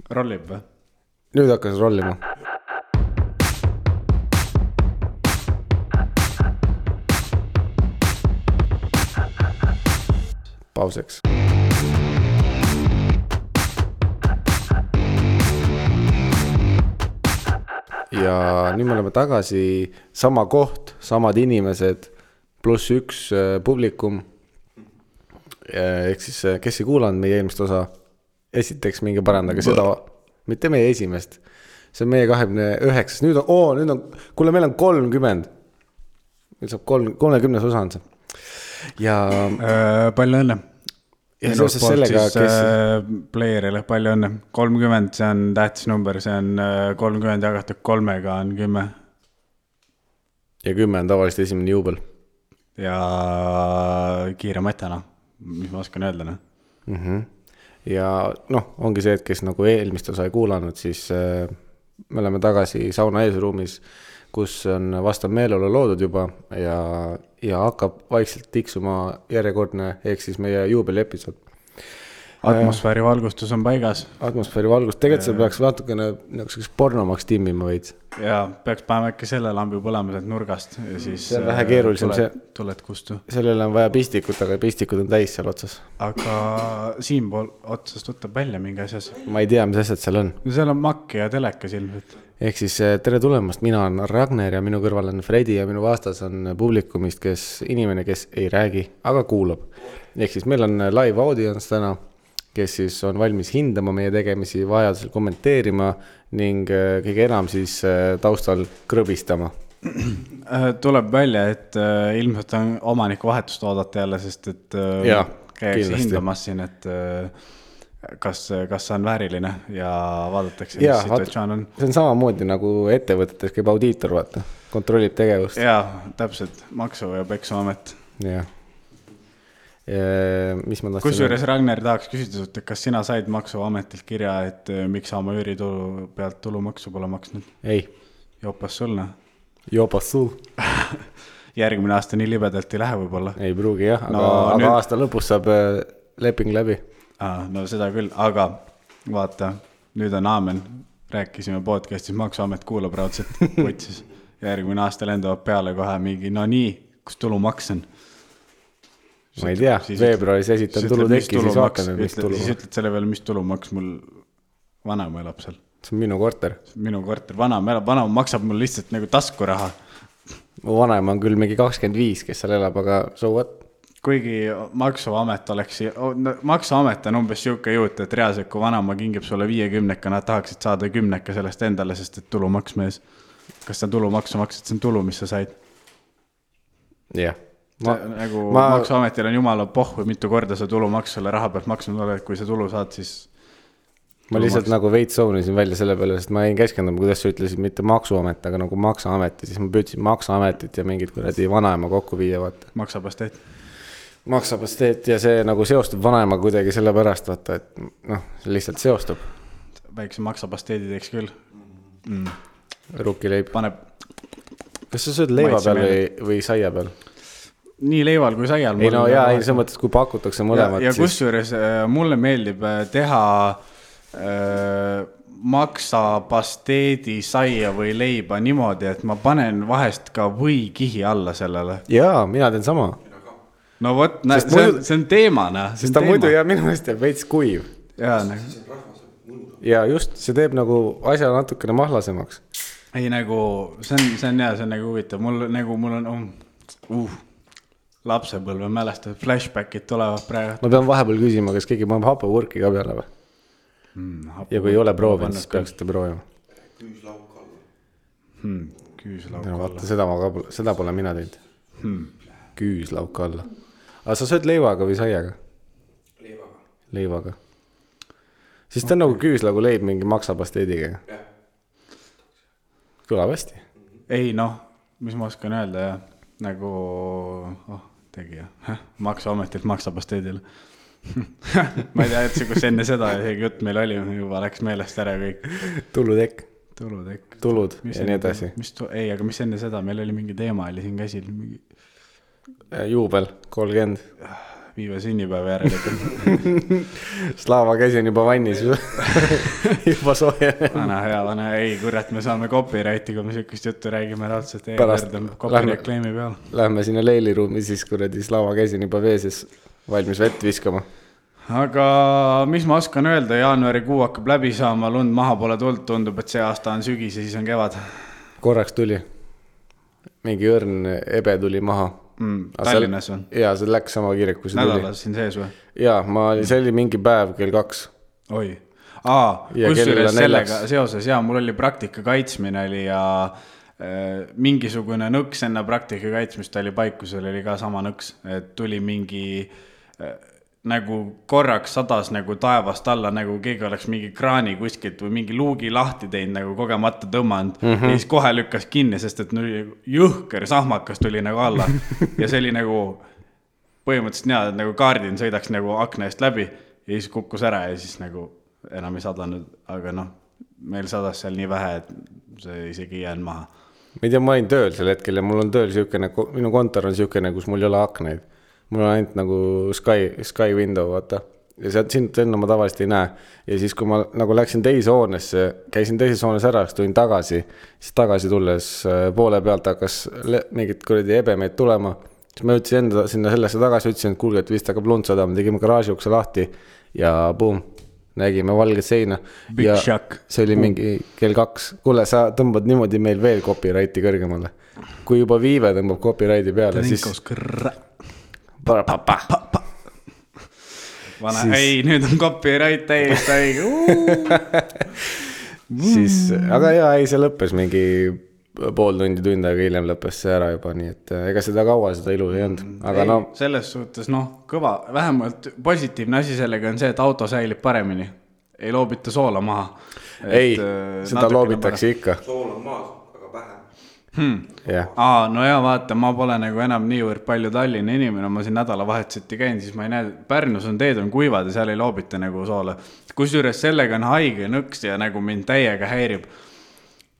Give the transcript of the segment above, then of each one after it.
Rollib või? Nüüd hakkas rollima. Pauseks. Ja nüüd me oleme tagasi, sama koht, samad inimesed, pluss üks publikum. Ehk siis, kes ei kuulanud meie eelmist osa, esiteks minge parandage seda, mitte meie esimest. See on meie 29. Nüüd on, kuule, meil on 30. Meil saab 30 osa on see. Ja palju õnne. Ja seoses sellega, kes... Playerile palju õnne. 30, see on tähtis number, see on 30 jagatud 3-ga on 10. Ja 10 on tavaliselt esimene juubel. Ja kiire matjana, mis ma oskan öelda. Ja ongi see, et kes nagu eelmist osa ei kuulanud, siis me oleme tagasi sauna eesruumis, kus on vastav meeleolu loodud juba ja hakkab vaikselt tiksuma järjekordne, ehk siis meie juubeli episood. Atmosfääri valgustus on paigas. Atmosfääri valgustus, tegelikult see peaks natukene nagu pornomaks timmima võid. Ja peaks panema äkki selle lambi põlema sealt nurgast ja siis see on vähe keerulisem, tuled kustu. Sellele on vaja pistikut, aga pistikud on täis seal otsas. Aga siinpool otsast võtab välja mingi asjas. Ma ei tea, mis asjad seal on. Seal on makk ja telekas ilmselt. Ehk siis tere tulemast, mina on Ragnar ja minu kõrval on Fredi ja minu vastas on publikumist, inimene, kes ei räägi, aga kuulab. Ehk siis meil on live audience täna, kes siis on valmis hindama meie tegemisi, vajadusel kommenteerima ning kõige enam siis taustal krõbistama. Tuleb välja, et ilmselt on omaniku vahetust oodata jälle, sest et käiakse hindamas siin, et kas on vääriline ja vaadatakse, mis situatsioon on. See on samamoodi nagu ettevõtetes käib audiitor, vaata, kontrollib tegevust. Jaa, täpselt, maksu- ja peksuamet. Jah. Kusjuures Ragnar tahaks küsida, et kas sina said maksuametilt kirja, et miks sa oma üüritulu pealt tulumaksu pole maksnud? Ei. Jopas sulna? Jopas sul. Järgmine aasta nii libedalt ei lähe võib-olla. Ei pruugi jah, aga aasta lõpus saab leping läbi. No seda küll, aga vaata, nüüd on aamen. Rääkisime podcastis, maksuamet kuulab raudselt võtsis. Järgmine aasta lendavad peale kohe mingi, no nii, kus tulumaks on? Ma ei tea, veebruaris esitan tulutekki, siis vaatame, mis tulumaks. Siis ütled selle peale, mis tulumaks mul vanaema elab seal. See on minu korter. Minu korter, vanaema maksab mul lihtsalt nagu taskuraha. Mu vanaema on küll mingi 25, kes seal elab, aga so what? Kuigi maksuamet on umbes siuke juut, et reaalselt, kui vanaema kingib sulle 50, nad tahaksid saada 10 sellest endale, sest et tulumaks mees. Kas sa tulumaksu maksad, see on tulu, mis sa said? Jah. Maksuametil on jumala pohv, mitu korda sa tulumaksu selle raha pealt maksnud oled, kui sa tulu saad, siis ma lihtsalt nagu veits soonisin välja selle peale, sest ma ei keskenduma, kuidas sa ütlesid mitte maksuamet, aga nagu maksuamet ja siis ma püüdsin maksuametit ja mingid kuradi vanaema kokku viia, vaata. Maksapasteet ja see nagu seostub vanaema kuidagi selle pärast, vaata, et see lihtsalt seostub. Väikse maksapasteedi teeks küll. Rukileib. Kas sa sööd leiva peal või saia peal? Nii leival kui saial. Ei no jaa, see mõttes, kui pakutakse mõlemad. Ja kusjuures mulle meeldib teha maksapasteedi, saia või leiba niimoodi, et ma panen vahest ka või kihi alla sellele. Jaa, mina teen sama. No võt, see on teemana. Sest ta muidu ja minu meelest jääb veits kuiv. Ja just, see teeb nagu asja natukene mahlasemaks. Ei nagu, see on nagu huvitav. Mul on lapsepõlve mälestab, flashbackid tulevad praegu. Ma pean vahepeal küsima, kas keegi paneb hapavurki ka peale või? Ja kui ei ole proovinud, siis peaksite proovima. Küüslauk alla. Vaata, seda pole mina teinud. Küüslauk alla. Aga sa sööd leivaga või saiaga? Leivaga. Siis ta on nagu küüslagu leib mingi maksapasteediga. Kõlab hästi. Ei mis ma oskan öelda ja nagu tegija. Maksuametilt maksapasteedile. Ma ei tea, et kus enne seda jutt meil oli, juba läks meelest ära kõik. Tulutekk. Tulud ja nii edasi. Ei, aga mis enne seda, meil oli mingi teema, oli siin käsil. Juubel, 30. Viive sünnipäeva järelikult. Slava käsi on juba vannis juba soojenenud. Vana hea, ei kurat, me saame copyrighti, kui me sükust juttu räägime raudselt. Lähme, lähme sinna leiliruumi siis kuradi Slava käsi on juba veeses valmis vett viskama. Aga mis ma oskan öelda, jaanuarikuu hakkab läbi saama, lund maha pole tulnud, tundub, et see aasta on sügis ja siis on kevad. Korraks tuli. Mingi õrn ebe tuli maha. Tallinnas on? Jaa, see läks sama kiirelt, kui see tuli. Nädalas siin sees või? Jaa, see oli mingi päev kell 2. Oi. Kusjuures sellega seoses, mul oli praktika kaitsmine oli ja mingisugune nõks enne praktika kaitsmist oli paikusel, oli ka sama nõks, et tuli mingi nagu korraks sadas nagu taevast alla, nagu keegi oleks mingi kraani kuskilt või mingi luugi lahti teinud, nagu kogemata tõmmanud ja siis kohe lükkas kinni, sest et jõhker sahmakas tuli nagu alla ja see oli nagu põhimõtteliselt nii, et nagu kaardin sõidaks nagu akna eest läbi ja siis kukkus ära ja siis nagu enam ei sadanud, aga meil sadas seal nii vähe, et see isegi ei jäänud maha. Ma ei tea, ma olin tööl sel hetkel ja mul on tööl siukene, minu kontor on siukene, kus mul ei ole akneid. Mul on ainult nagu sky window, vaata. Ja sind enne ma tavaliselt ei näe. Ja siis, kui ma nagu läksin teise hoonesse, käisin teises hoones ära, tulin tagasi, siis tagasi tulles poole pealt hakkas mingid kuradi ebemeid tulema. Siis ma ütlesin enda sinna sellesse tagasi, ütlesin, et kuulge, et vist hakkab lund sadama, tegime garaaži ukse lahti ja boom, nägime valget seina. Big ja shock. See oli mingi kell 2. Kuule, sa tõmbad niimoodi meil veel copyrighti kõrgemale. Kui juba Viive tõmbab copyrighti peale, siis... Vana, ei, nüüd on copyright täiesti õige. Siis, aga jaa, ei, see lõppes mingi pool tund aega hiljem lõppes see ära juba, nii et ega seda kaua seda ilu ei olnud. Aga ei, selles suhtes, kõva, vähemalt positiivne asi sellega on see, et auto säilib paremini. Ei loobita soola maha. Ei, seda loobitakse ikka. Sool on maas, aga vähem. No ja vaata, ma pole nagu enam niivõrd palju Tallinna inimene, ma siin nädalavahetuseti käin, siis ma ei näe, Pärnus on teed on kuivad ja seal ei loobita nagu soola. Kusjuures sellega on haige nõks ja nagu mind täiega häirib.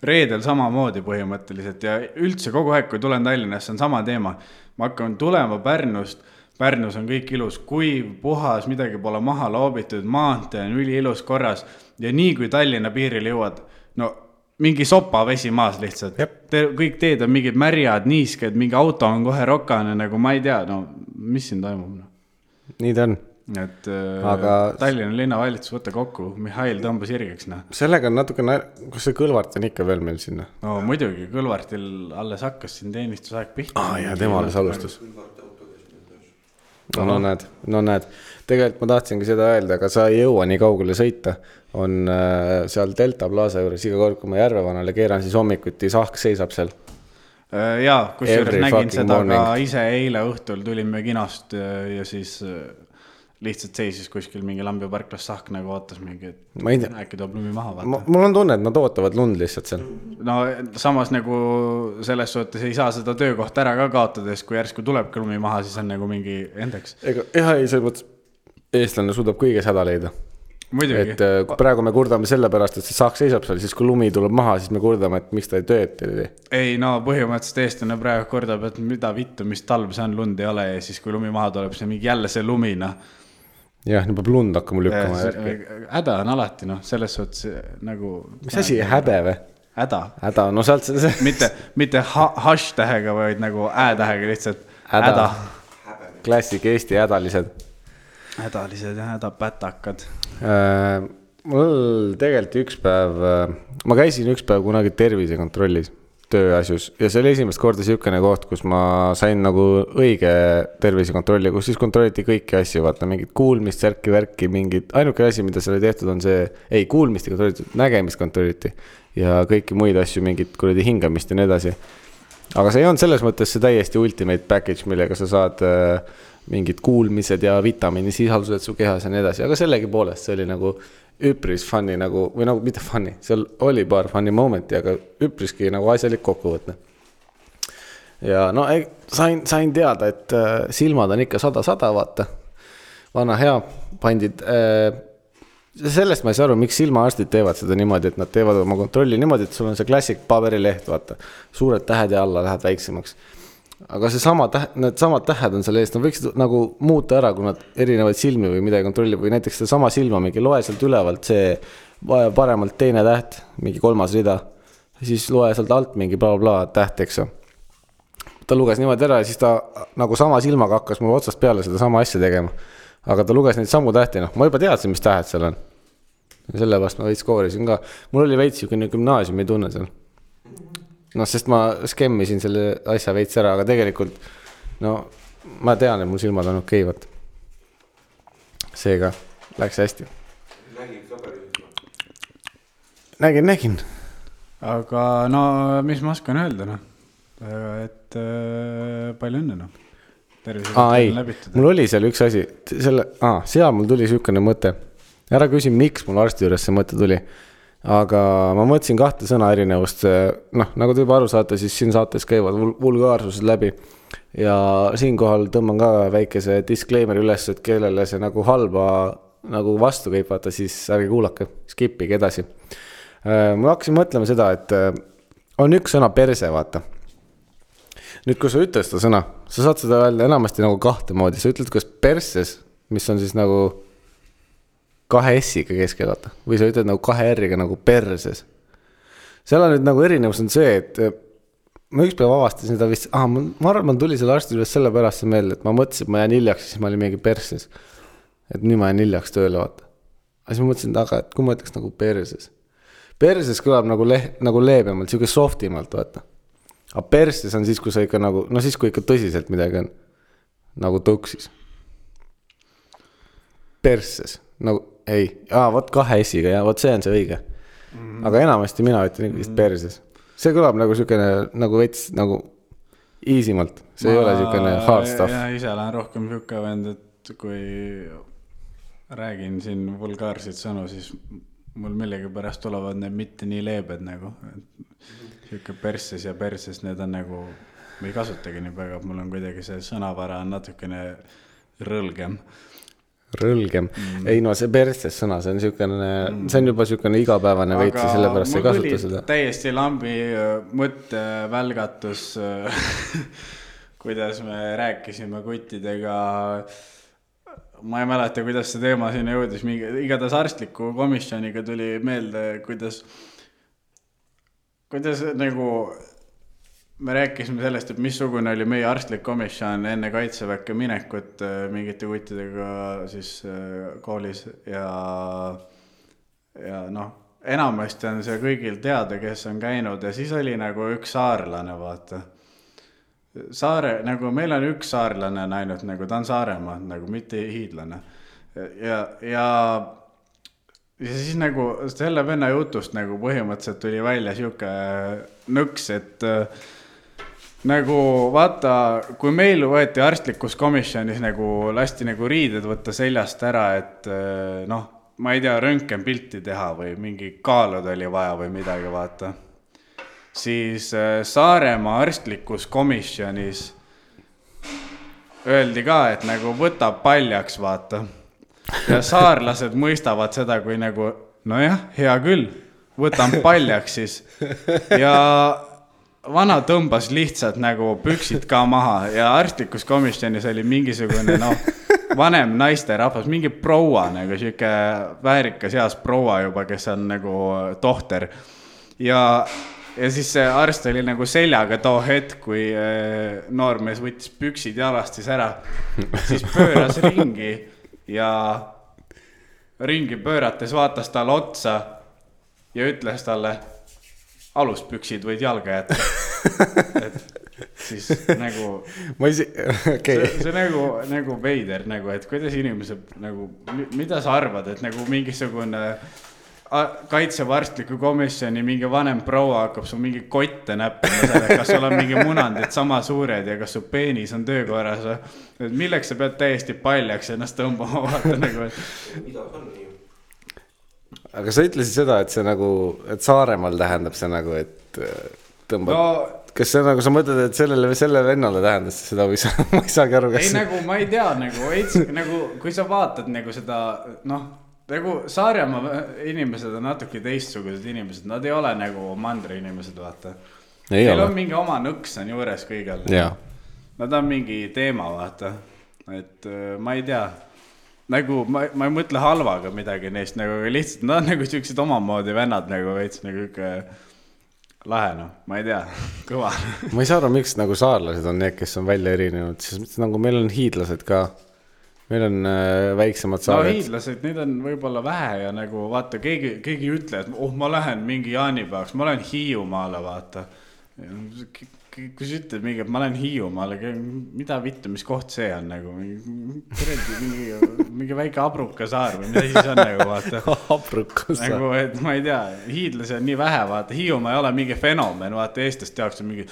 Reedel samamoodi põhimõtteliselt ja üldse kogu aeg, kui tulen Tallinnasse, on sama teema. Ma hakkan tulema Pärnust, Pärnus on kõik ilus, kuiv, puhas, midagi pole maha loobitud, maantee on üli ilus korras ja nii kui Tallinna piiril jõuad, mingi sopa vesi maas lihtsalt. Kõik teed on mingid märjad, niisked, mingi auto on kohe rokane, nagu ma ei tea, mis siin toimub. Nii ta on. Et aga... Tallinna linnavalitsus võtta kokku, Mihhail tõmbas irgeks. Sellega on natuke, kas see Kõlvart on ikka veel meil sinna? Muidugi, Kõlvartil alles hakkas siin teenistusaeg pihta. Ja tema alles alustas. No näed. Tegelikult ma tahtsingi seda öelda, aga sa ei jõua nii kaugele sõita. On seal Delta Plaza juures iga kord, kui ma Järvevanale keeran, siis hommikuti sahk seisab seal. Jaa, kusjuures nägin seda morning. Ka ise eile õhtul tulime kinost ja siis lihtsalt seisis kuskil mingi Lambiparklas sahk nagu ootas mingi, et äkki toob lumi maha. Mul on tunne, et nad ootavad lund lihtsalt seal. No samas nagu selles suhtes ei saa seda töökohta ära ka kaotades, kui järsku tuleb lumi maha, siis on nagu mingi endaks. Ei, see mõttes eestlane suudab kõiges häda leida. Muidugi. Et praegu me kurdame selle pärast, et see sahk seisab seal, siis kui lumi tuleb maha, siis me kurdame, et miks ta ei tööd. Ei, põhimõtteliselt eestlane praegu kordab, et mida vittu, mis talv see on, lund ei ole ja siis kui lumi maha tuleb, siis mingi jälle see lumina. Jah, nii peab lund hakkama lükkama. Häda on alati, selles suhtes nagu... Mis asi, häbe või? Häda, sealt see... mitte hash-tähega, vaid nagu ä-tähega lihtsalt. Häda. Klassik Eesti hädalised. Hädalised ja hädapätakad. Mul tegelikult üks päev, ma käisin üks päev kunagi tervisekontrollis tööasjus ja see oli esimest korda siukene koht, kus ma sain nagu õige tervisekontrolli, kus siis kontrolliti kõiki asju, vaata mingid kuulmist, värki, mingid, ainuke asi, mida seal oli tehtud on see, ei kuulmist ei kontrolliti, nägemist kontrolliti ja kõiki muid asju, mingid kuradi hingamist ja nii edasi. Aga see ei olnud selles mõttes see täiesti ultimate package, millega sa saad mingid kuulmised ja vitamiini sisaldused su kehas ja nii edasi, aga sellegi poolest see oli nagu üpris funny nagu, või nagu mitte funny, seal oli paar funny momenti, aga üpriski nagu asjalik kokkuvõtne. Ja sain teada, et silmad on ikka 100, vaata. Vana hea, pandid. Sellest ma ei saa aru, miks silmaarstid teevad seda niimoodi, et nad teevad oma kontrolli niimoodi, et sul on see klassik paberileht, vaata. Suured tähed ja alla lähed väiksemaks. aga need samad tähed on seal ees, nad võiksid nagu muuta ära, kui nad erinevaid silmi või midagi kontrollib või näiteks seda sama silma mingi loe sealt ülevalt see paremalt teine täht, mingi 3. rida, siis loe sealt alt mingi bla täht, eks. Ta luges niimoodi ära ja siis ta nagu sama silmaga hakkas mul otsast peale seda sama asja tegema. Aga ta luges neid sammu tähti, noh, ma juba teadsin, mis tähed seal on. Ja sellepärast ma veits koorisin ka. Mul oli veits jõukene gümnaasiumi tunne seal. No, sest ma skemmisin selle asja veits ära, aga tegelikult, no, ma tean, et mul silmad on okeivad. Seega läks hästi. Nägin. Aga no, mis ma oskan öelda, noh? Et palju õnne, noh. Ei, mul oli seal üks asi, seal mul tuli sükene mõte. Ära küsi, miks mul arsti juures see mõte tuli. Aga ma mõtlesin 2 sõna erinevust. Noh, nagu te juba aru saate, siis siin saates käivad vulgaarsused läbi. Ja siinkohal tõmban ka väikese disclaimer üles, et kellele see nagu halba nagu vastu käib, vaata, siis ärge kuulake, skipige edasi. Ma hakkasin mõtlema seda, et on üks sõna perse, vaata. Nüüd, kui sa ütled seda sõna, sa saad seda öelda enamasti nagu 2 moodi. Sa ütled kas perses, mis on siis nagu 2 S-iga keskel, vaata. Või sa ütled nagu 2 R-iga nagu perses. Seal on nüüd nagu erinevus on see, et ma ükspäev avastasin seda vist, ma arvan, tuli selle arsti üles selle pärast see meelde, et ma mõtlesin, et ma jään hiljaks, siis ma olin mingi perses. Et nüüd ma jään hiljaks tööle, vaata. Aga siis ma mõtlesin, et kui ma ütleks nagu perses. Perses kõlab nagu leebemalt, siuke softimalt, vaata. Aga perses on siis, kui sa ikka nagu, no siis, kui ikka tõsiselt midagi on, nagu tõuksis. Perses, nagu, võt 2 S-iga, ja võt see on see õige. Aga enamasti mina ütlen vist perses. See kõlab nagu sükene, nagu veits, nagu easimalt. See ei ole sükene hard stuff. Ja ise olen rohkem sükka vend, et kui räägin siin vulgaarseid sõnu, siis mul millegi pärast tulevad need mitte nii leebed nagu. Siuke perses ja perses, need on nagu, ma ei kasutagi nii väga, mul on kuidagi see sõnavara on natukene rõlgem. Rõlgem. Ei no see perses sõna, see on juba siukene igapäevane veits ja sellepärast ei kasuta seda. Täiesti lambi mõttevälgatus, kuidas me rääkisime kuttidega. Ma ei mäleta, kuidas see teema sinna jõudis. Igatahes arstliku komisjoniga tuli meelde, kuidas nagu me rääkisime sellest, et missugune oli meie arstlik komisjon enne kaitseväkke minekut mingite kuttidega siis koolis ja noh, enamasti on see kõigil teada, kes on käinud ja siis oli nagu üks saarlane, vaata. Nagu meil on üks saarlane ainult, nagu ta on Saaremaa, nagu mitte hiidlane. Ja siis nagu selle venna jutust nagu põhimõtteliselt tuli välja siuke nõks, et nagu vaata, kui meil võeti arstlikus komisjonis nagu lasti nagu riided võtta seljast ära, et noh, ma ei tea, röntgenpilti teha või mingi kaalud oli vaja või midagi, vaata. Siis Saaremaa arstlikus komisjonis öeldi ka, et nagu võtab paljaks, vaata. Ja saarlased mõistavad seda, kui nagu, nojah, hea küll, võtan paljaks siis. Ja vana tõmbas lihtsalt nagu püksid ka maha ja arstlikus komisjonis oli mingisugune, vanem naiste rahvas, mingi proua, nagu siuke väärikas heas proua juba, kes on nagu tohter. Ja siis see arst oli nagu seljaga too hetk, kui noormees võttis püksid jalast siis ära, siis pööras ringi ja ringi pöörates vaatas talle otsa ja ütles talle, aluspüksid võid jalga jätta. Et siis nagu see nagu veider, nagu, et kuidas inimesed nagu, mida sa arvad, et nagu mingisugune kaitsevarstliku komisjoni mingi vanem proua hakkab su mingi kotte näppima selle, kas sul on mingi munandid sama suured ja kas su peenis on töökorras. Milleks sa pead täiesti paljaks ennast tõmbama, vaata nagu. Aga sa ütlesid seda, et see nagu, et Saaremaal tähendab see nagu, et tõmbab, kas see nagu, sa mõtled, et selle vennale tähendas seda või ma ei saagi aru, kas ei, nagu ma ei tea, nagu kui sa vaatad nagu seda, nagu Saaremaa inimesed on natuke teistsugused inimesed, nad ei ole nagu mandri inimesed, vaata. Neil on mingi oma nõks on juures kõigel. nad on mingi teema, vaata, et ma ei tea, nagu ma ei mõtle halvaga midagi neist, nagu lihtsalt nad on nagu siuksed omamoodi vennad nagu veits nagu ikka lahe, noh, ma ei tea, kõva. Ma ei saa aru, miks nagu saarlased on need, kes on välja erinenud, sest nagu meil on hiidlased ka, meil on väiksemad saared. No hiidlased, neid on võib-olla vähe ja nagu vaata, keegi ütle, et ma lähen mingi jaanipäevaks, ma lähen Hiiumaale, vaata. Kui sa ütled mingi, et ma lähen Hiiumaale, mida vittu, mis koht see on nagu, mingi väike abruka saar või mida siis on nagu, vaata. Abruka saar. Nagu, et ma ei tea, hiidlasi on nii vähe, vaata, Hiiumaa ei ole mingi fenomen, vaata, eestest jaoks on mingi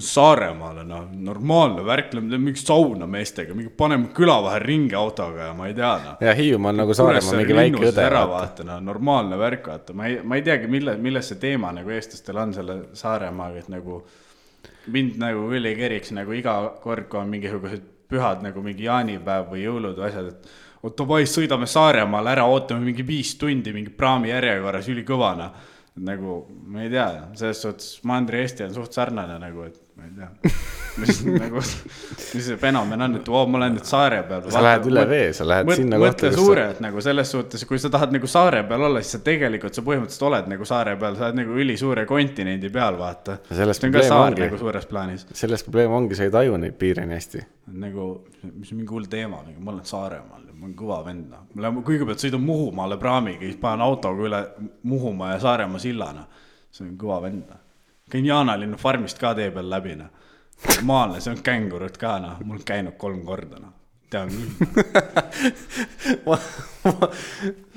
Saaremaale, no, normaalne värk, mingi sauna meestega, mingi paneme küla vahel ringi autoga ja ma ei tea, no. Ja Hiiumaa on nagu Saaremaa mingi väike õde. Vaata, no, normaalne värk, vaata, ma ei teagi, milles see teema nagu eestlastel on selle Saaremaaga, et nagu mind nagu üli keriks nagu iga kord, kui on mingisugused pühad nagu mingi jaanipäev või jõulud või asjad, et oota vai, sõidame Saaremaale ära, ootame mingi 5 tundi mingi praami järjekorras üli kõvana. Nagu, ma ei tea, selles suhtes Mandri-Eesti on suht sarnane nagu, et ma ei tea, mis see fenomen on, et ma lähen nüüd saare peal. Sa lähed üle vee, sa lähed sinna kohta. Mõtle suure, et nagu selles suhtes, kui sa tahad nagu saare peal olla, siis sa tegelikult sa põhimõtteliselt oled nagu saare peal, sa oled nagu üli suure kontinendi peal, vaata. See on ka saar nagu suures plaanis. Selles probleem ongi, sa ei taju neid piire nii hästi. Nagu, mis on mingi hull teema, ma olen Saaremaal, ma olen kõva vend. Kõigepealt sõidan Muhumaale praamiga, siis panen autoga üle Muhumaa ja Saaremaa sillana. See on kõva vend. Käin Jaanalinnu farmist ka tee peal läbi. Normaalne, see on kängurud ka, mul on käinud 3 korda. Tean küll.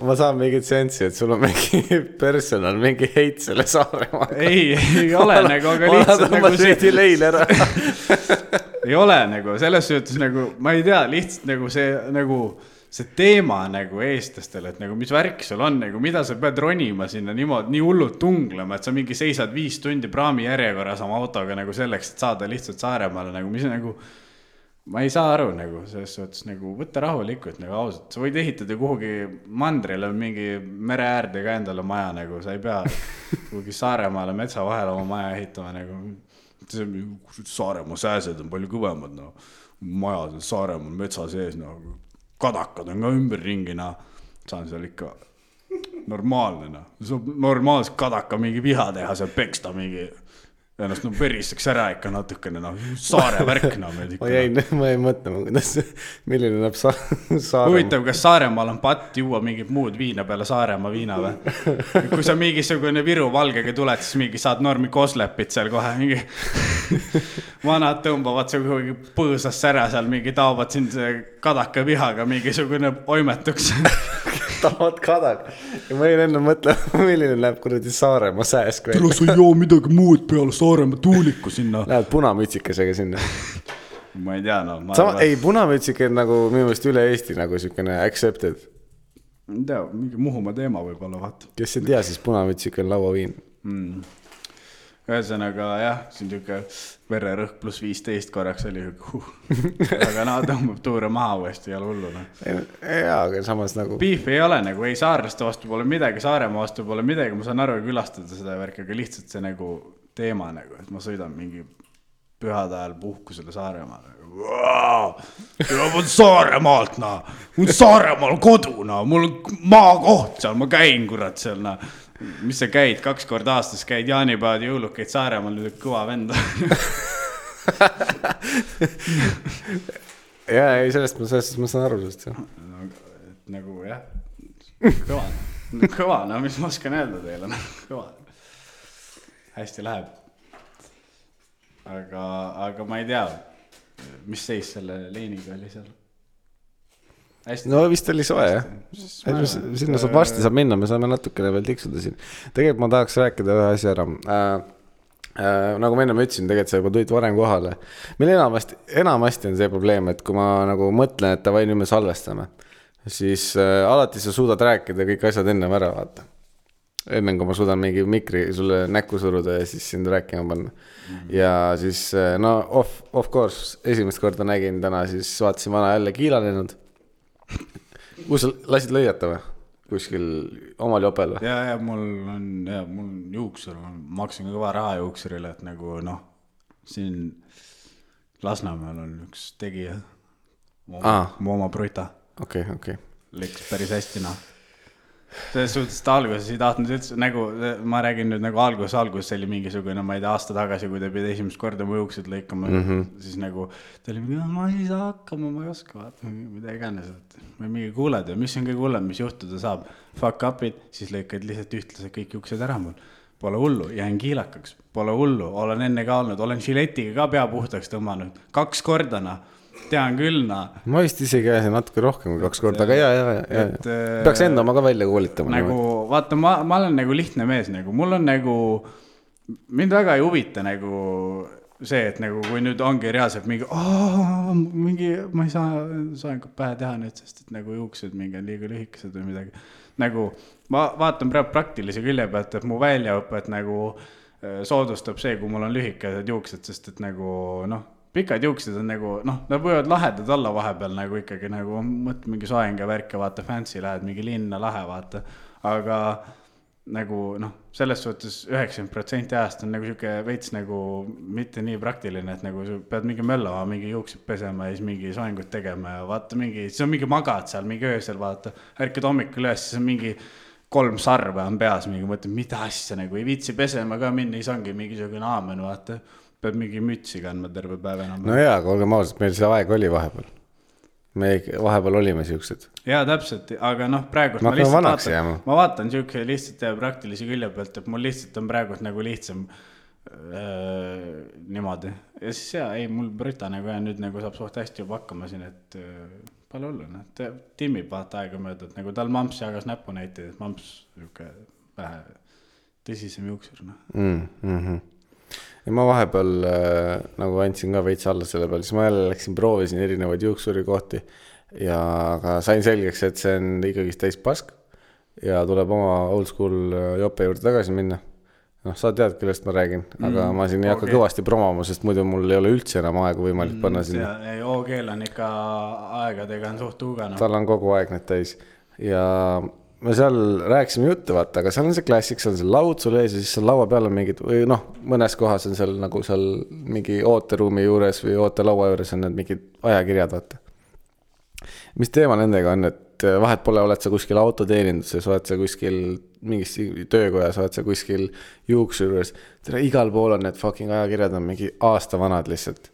ma saan mingit sensi, et sul on mingi personal, mingi heit selle Saaremaaga. Ei ole nagu, aga lihtsalt nagu see leil ära. Ei ole nagu, selles suhtes nagu, ma ei tea, lihtsalt nagu see teema nagu eestlastel, et nagu mis värk sul on, nagu mida sa pead ronima sinna niimoodi, nii hullult tunglema, et sa mingi seisad 5 tundi praami järjekorras oma autoga nagu selleks, et saada lihtsalt Saaremaale, nagu mis nagu, ma ei saa aru nagu, selles suhtes nagu võtta rahulikult nagu ausalt, sa võid ehitada kuhugi mandrile mingi mere äärde ka endale maja nagu, sa ei pea kuhugi Saaremaale metsa vahel oma maja ehitama nagu. Saaremaa sääsed on palju kõvemad, no. Majad on Saaremaa metsa sees, no. Kadakad on ka ümber ringi, no. Saan seal ikka normaalne, no. Saab normaalselt kadaka mingi viha teha, seal peksta mingi ennast veristaks ära ikka natukene, no. Saare värk, no. Ma ei mõtle, milline näeb Saaremaa. Huvitav, kas Saaremaal on patt juua mingit muud viina peale Saaremaa viina või? Kui sa mingisugune Viru valgega tuled, siis mingi saad normi koslepit seal kohe. Mingi vanad tõmbavad see kuhugi põõsasse ära seal, mingi taovad siin kadaka vihaga mingisugune oimetuks. Tahavad kadak. Ja ma ei enne mõtle, milline näeb kuradi Saaremaa sääsk välja. Tule sa joo midagi muud peale Saaremaa tuuliku sinna. Lähed punamütsikesega sinna. Ma ei tea, no. Ei, punamütsike on nagu minu meelest üle Eesti nagu sükene accepted. Ei tea, mingi Muhumaa teema võib olla, vaata. Kes ei tea, siis punamütsike on lauaviin. Ühesõnaga, jah, siin tüke vererõhk plus 15 korraks oli aga tõmbab tuure maha uuesti ja hulluna. Jaa, aga samas nagu Beef ei ole nagu, ei saarlaste vastu pole midagi, Saaremaa vastu pole midagi, ma saan aru külastada seda värki, aga lihtsalt see nagu teema nagu, et ma sõidan mingi pühade ajal puhkusele Saaremaale. Ma olen Saaremaalt, no. Mul Saaremaal kodu, no. Mul on maakoht seal, ma käin kurat seal, no. Mis sa käid, 2 korda aastas käid jaanipäevad ja jõulukeid Saaremaal, nüüd kõva venda. Jaa, ei, sellest ma saan aru sellest, jah. Nagu, jah, kõva, no mis ma oskan öelda teile, kõva. Hästi läheb. Aga ma ei tea, mis seis selle leiniga oli seal. Hästi. No vist oli soe, jah. Sinna varsti saab minna, me saame natukene veel tiksuda siin. Tegelikult ma tahaks rääkida ühe asja ära. Nagu ma enne ütlesin, tegelikult sa juba tulid varem kohale. Meil enamasti on see probleem, et kui ma nagu mõtlen, et davai, nüüd me salvestame, siis alati sa suudad rääkida kõik asjad enne ära vaata. Enne kui ma suudan mingi mikri sulle näkku suruda ja siis sind rääkima panna. Ja siis, no of course, esimest korda nägin täna, siis vaatasin vana jälle kiilanenud. Kus sa lasid lõiata või? Kuskil omal jopel või? Ja mul on juuksur, ma maksin kõva raha juuksurile, et nagu noh, siin Lasnamäel on üks tegija, mu oma Bruta. Okei. Läks päris hästi, noh. Selles suhtes, et alguses ei tahtnud üldse, nagu ma räägin nüüd nagu alguses oli mingisugune, ma ei tea, aasta tagasi, kui ta pidi esimest korda mu juuksed lõikama, siis nagu ta oli mingi, ma ei saa hakkama, ma ei oska, vaata, mida iganes, ma mingi kuuled ja mis on kõige hullem, mis juhtuda saab, fuck up'id, siis lõikad lihtsalt ühtlased kõik juuksed ära mul. Pole hullu, jään kiilakaks, pole hullu, olen enne ka olnud, olen žiletiga ka pea puhtaks tõmmanud, 2 kordana. Tean küll, Ma vist isegi ajasin natuke rohkem kui 2 korda, aga ja. Peaks enda oma ka välja koolitama. Nagu, vaata, ma olen nagu lihtne mees, nagu, mul on nagu, mind väga ei huvita nagu see, et nagu, kui nüüd ongi reaalselt mingi, ma ei saa pähe teha nüüd, sest et nagu juuksed mingi on liiga lühikesed või midagi. Nagu, ma vaatan praegu praktilise külje pealt, et mu väljaõpet nagu soodustab see, kui mul on lühikesed juuksed, sest et nagu, pikad juuksed on nagu, nad võivad lahedad olla vahepeal nagu ikkagi nagu, mõtle mingi soenga värke, vaata, fancy lähed, mingi linna lahe, vaata, aga nagu, selles suhtes 90% ajast on nagu siuke veits nagu mitte nii praktiline, et nagu sa pead mingi möllama, mingi juuksed pesema ja siis mingi soengut tegema ja vaata mingi, see on mingi magad seal, mingi öösel, vaata, ärkad hommikul üles, siis on mingi 3 sarve on peas, mingi mõtled, mida asja nagu ei viitsi pesema ka minna, siis ongi mingisugune aamen, vaata. Peab mingi mütsi kandma terve päev enam. No jaa, aga olgem ausalt, meil see aeg oli vahepeal. Me vahepeal olime siuksed. Jaa, täpselt, aga praegu ma vaatan siuke lihtsalt praktilisi külje pealt, et mul lihtsalt on praegu nagu lihtsam niimoodi. Ja siis mul Brita nagu nüüd nagu saab suht hästi juba hakkama siin, et palju olla, timmib vaata aega mööda, et nagu tal mamps jagas näppu näitid, et mamps siuke vähe tõsisem juuksur. Ja ma vahepeal nagu andsin ka veits alla selle peal, siis ma jälle läksin, proovisin erinevaid juuksuri kohti ja aga sain selgeks, et see on ikkagi täis pask ja tuleb oma old school jope juurde tagasi minna. Sa tead, kellest ma räägin, aga ma siin ei hakka kõvasti promoma, sest muidu mul ei ole üldse enam aega võimalik panna sinna. OG-l on ikka aegadega on suht uugana. Tal on kogu aeg need täis ja me seal rääkisime juttu, vaata, aga seal on see klassik, seal on see laud sul ees ja siis seal laua peal on mingid, või mõnes kohas on seal nagu seal mingi ooteruumi juures või ootelaua juures on need mingid ajakirjad, vaata. Mis teema nendega on, et vahet pole, oled sa kuskil autoteeninduses, oled sa kuskil mingis töökojas, oled sa kuskil juuksjuures, igal pool on need fucking ajakirjad on mingi aasta vanad lihtsalt.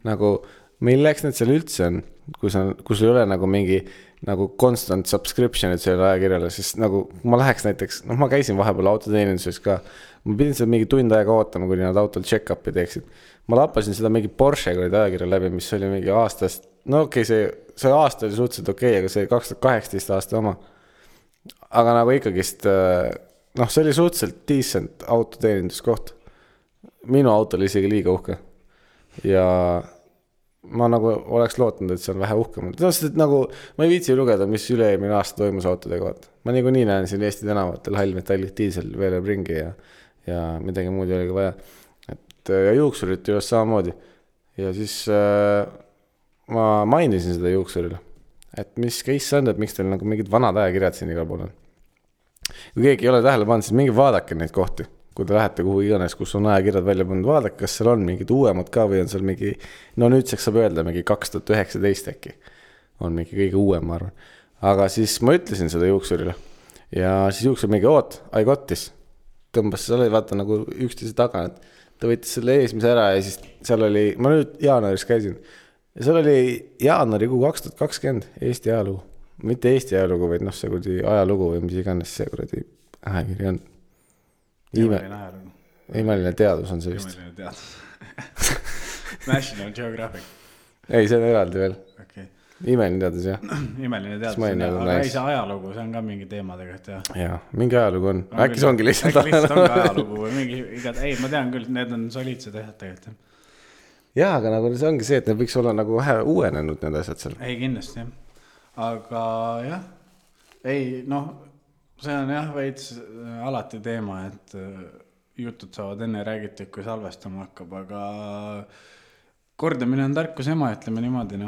Nagu, milleks need seal üldse on, kui sul ei ole nagu mingi nagu constant subscription'id selle ajakirjale, siis nagu ma läheks näiteks, ma käisin vahepeal autoteeninduses ka, ma pidin seda mingi tund aega ootama, kuni nad autol check-up'i teeksid. Ma lappasin seda mingi Porsche ajakirja läbi, mis oli mingi aastast, see aasta oli suhteliselt okei, aga see 2018 aasta oma. Aga nagu ikkagist, see oli suhteliselt decent autoteeninduskoht. Minu auto oli isegi liiga uhke. Ja ma nagu oleks lootnud, et see on vähe uhkem. Sest nagu, ma ei viitsi lugeda, mis üle-eelmine aasta toimus autodega. Ma nagu nii näen siin Eesti tänavatel hallmetallid diisel veeleb ringi ja midagi muud ei olegi vaja. Ja juuksurit just samamoodi. Ja siis ma mainisin seda juuksurile, et mis case on, et miks teil nagu mingid vanad ajakirjad siin igal pool on. Kui keegi ei ole tähele pannud, siis mingi vaadake neid kohti. Kui te lähete kuhu iganes, kus on ajakirjad välja pandud, vaadake, kas seal on mingid uuemad ka või on seal mingi, nüüdseks saab öelda mingi 2019 äkki. On mingi kõige uuem, ma arvan. Aga siis ma ütlesin seda juuksurile ja siis juuksur mingi I got this. Tõmbas seal oli vaata nagu üksteise taga, et ta võitis selle eesmise ära ja siis seal oli, ma nüüd jaanuaris käisin ja seal oli jaanuarikuu 2020 Eesti ajalugu. Mitte Eesti ajalugu, vaid see kuradi ajalugu või mis iganes see kuradi ajakiri on. Imeline teadus on see vist. Imeline teadus. National Geographic. Ei, see on eraldi veel. Okay. Imeline teadus, jah. Imeline teadus, aga ei see ajalugu, see on ka mingi teema tegelikult, jah. Jaa, mingi ajalugu on. Äkki see ongi lihtsalt ajalugu või mingi ei, ma tean küll, need on soliidsed asjad tegelikult. Jaa, aga nagu see ongi see, et need võiks olla nagu vähe uuenenud need asjad seal. Ei, kindlasti, jah. Aga jah, see on jah veits alati teema, et jutud saavad enne räägitud, kui salvestama hakkab, aga kordamine on tarkus ema, ütleme niimoodi.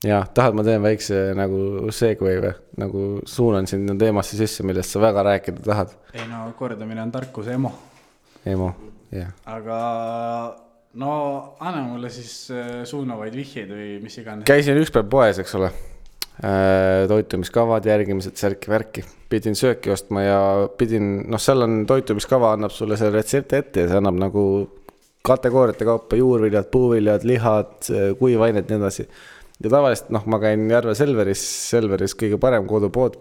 Jah, tahad ma teen väikse nagu segway või? Nagu suunan sinna teemasse sisse, millest sa väga rääkida tahad. Ei kordamine on tarkus emo. Emo, jah. Aga no anna mulle siis suunavaid vihjeid või mis iganes. Käisin üks päev poes, eks ole. Toitumiskavad, järgimised, särki-värki. Pidin sööki ostma ja seal on toitumiskava, annab sulle see retsepti ette ja see annab nagu kategooriate kaupa juurviljad, puuviljad, lihad, kuivained, nii edasi. Ja tavaliselt, ma käin Järve Selveris kõige parem kodupood.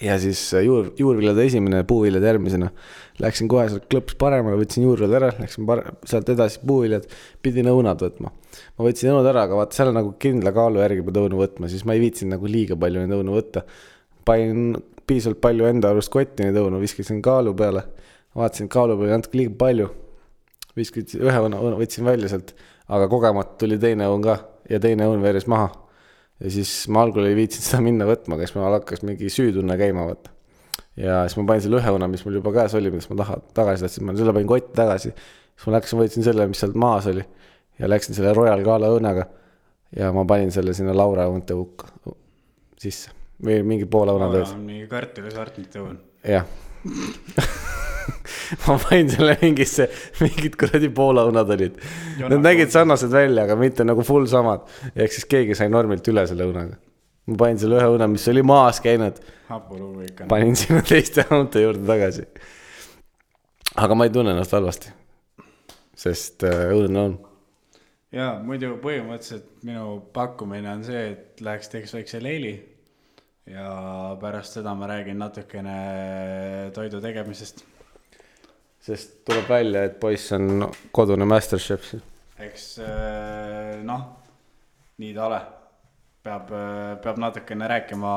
Ja siis juurviljade esimene, puuviljad järgmisena. Läksin kohe sealt klõps paremale, võtsin juurviljad ära, läksin sealt edasi puuviljad, pidin õunad võtma. Ma võtsin õunud ära, aga vaata, seal on nagu kindla kaalu järgi pead õunu võtma, siis ma ei viitsin nagu liiga palju neid õunu võtta. Panin piisavalt palju enda arust kotti neid õunu, viskasin kaalu peale, vaatasin kaalu peale natuke liiga palju. Viskasin ühe õunu, võtsin välja sealt, aga kogemata tuli teine õun ka ja teine õun veeres maha. Ja siis ma algul ei viitsin seda minna võtma, kes ma hakkas mingi süütunne käima võtta. Ja siis ma panin selle ühe õuna, mis mul juba käes oli, mis ma tagasi tahtsin, ma selle panin kotti tagasi. Siis ma läksin, võtsin selle, mis sealt maas oli ja läksin selle Royal Gala õunaga ja ma panin selle sinna Laura õunte hukka sisse. Või mingi poole õuna tões. Mingi kartulisartnite õun. Jah. Ma panin selle mingid kuradi poolaõunad olid. Need nägid sarnased välja, aga mitte nagu full samad. Ehk siis keegi sai normilt üle selle õunaga. Ma panin selle ühe õuna, mis oli maas käinud. Panin sinna teiste õunte juurde tagasi. Aga ma ei tunne ennast halvasti. Sest õudne on. Ja muidu põhimõtteliselt minu pakkumine on see, et läheks teeks väikse leili. Ja pärast seda ma räägin natukene toidu tegemisest. Sest tuleb välja, et poiss on kodune masterchef. Eks nii ta ole. Peab natukene rääkima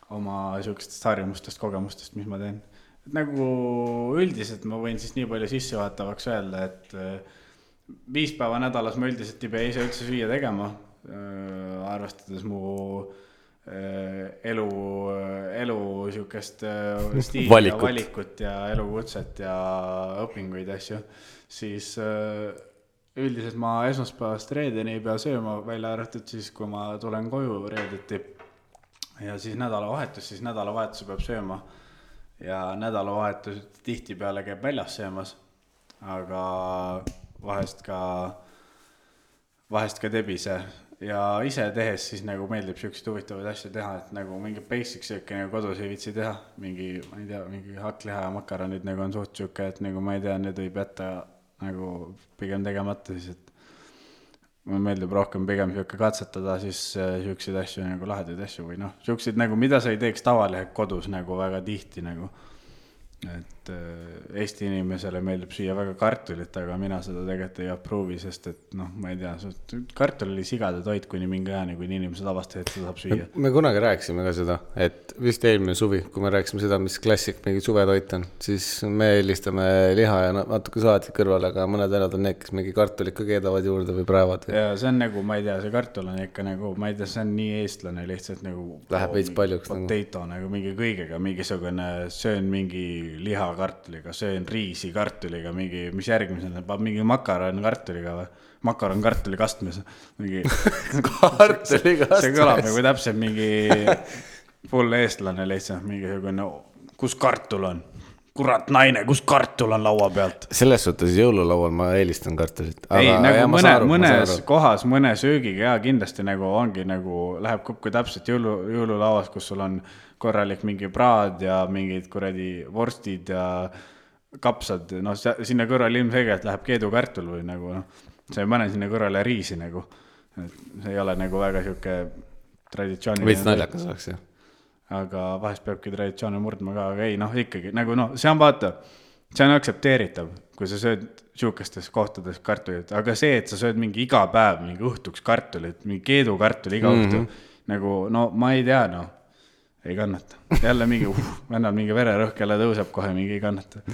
oma sihukestest harjumustest, kogemustest, mis ma teen. Et nagu üldiselt ma võin siis nii palju sissejuhatavaks öelda, et 5 päeva nädalas ma üldiselt ei pea ise üldse süüa tegema, arvestades mu elu sihukest stiili ja valikut ja elukutset ja õpinguid asju, siis üldiselt ma esmaspäevast reedeni ei pea sööma, välja arvatud siis, kui ma tulen koju reedeti ja siis nädalavahetuse peab sööma ja nädalavahetus tihtipeale käib väljas söömas, aga vahest ka tebise. Ja ise tehes siis nagu meeldib sihukesed huvitavaid asju teha, et nagu mingi basic sööki nagu kodus ei viitsi teha. Mingi hakkliha ja makaronid nagu on suht sihukke, et nagu ma ei tea, need võib jätta nagu pigem tegemata siis, et mulle meeldib rohkem pigem sihukke katsetada siis sihukesed asju nagu lahedaid asju või sihukesed nagu, mida sa ei teeks tavaliselt kodus nagu väga tihti nagu. Et Eesti inimesele meeldib süüa väga kartulit, aga mina seda tegelikult ei approovi, sest et ma ei tea, kartul oli sigade toit kuni mingi ajani, kui inimesed avastasid, et seda saab süüa. Me kunagi rääkisime ka seda, et vist eelmine suvi, kui me rääkisime seda, mis klassik mingi suvetoit on, siis me eelistame liha ja natuke saatit kõrvale, aga mõned vennad on need, kes mingi kartulit ka keedavad juurde või praevad. Ja see on nagu, ma ei tea, see kartul on ikka nagu, ma ei tea, see on nii eestlane lihtsalt nagu läheb veits paljuks potato nagu mingi kõigega, mingisugune söön mingi liha kartuliga, söön riisi kartuliga, mingi, mis järgmisena, mingi makaron kartuliga või? Makaron kartuli kastmes. Mingi kartuli kastmes. See kõlab nagu täpselt mingi full eestlane lihtsalt, mingi kus kartul on? Kurat naine, kus kartul on laua pealt? Selles suhtes jõululaual ma eelistan kartulit. Ei, nagu mõnes kohas, mõne söögiga ja kindlasti nagu ongi nagu, läheb kokku täpselt jõululauas, kus sul on korralik mingi praad ja mingid kuradi vorstid ja kapsad, sinna kõrval ilmselgelt läheb keedukartul või nagu, sa ei pane sinna kõrvale riisi nagu, see ei ole nagu väga sihuke traditsiooniline. Võits naljakas oleks, jah. Aga vahest peabki traditsioone murdma ka, aga ei, ikkagi, nagu see on vaata, see on aktsepteeritav, kui sa sööd sihukestes kohtades kartulit, aga see, et sa sööd mingi iga päev, mingi õhtuks kartulit, mingi keedukartul iga õhtu, nagu, ma ei tea, ei kannata. Jälle mingi, vennal mingi vererõhk jälle tõuseb kohe, mingi ei kannata.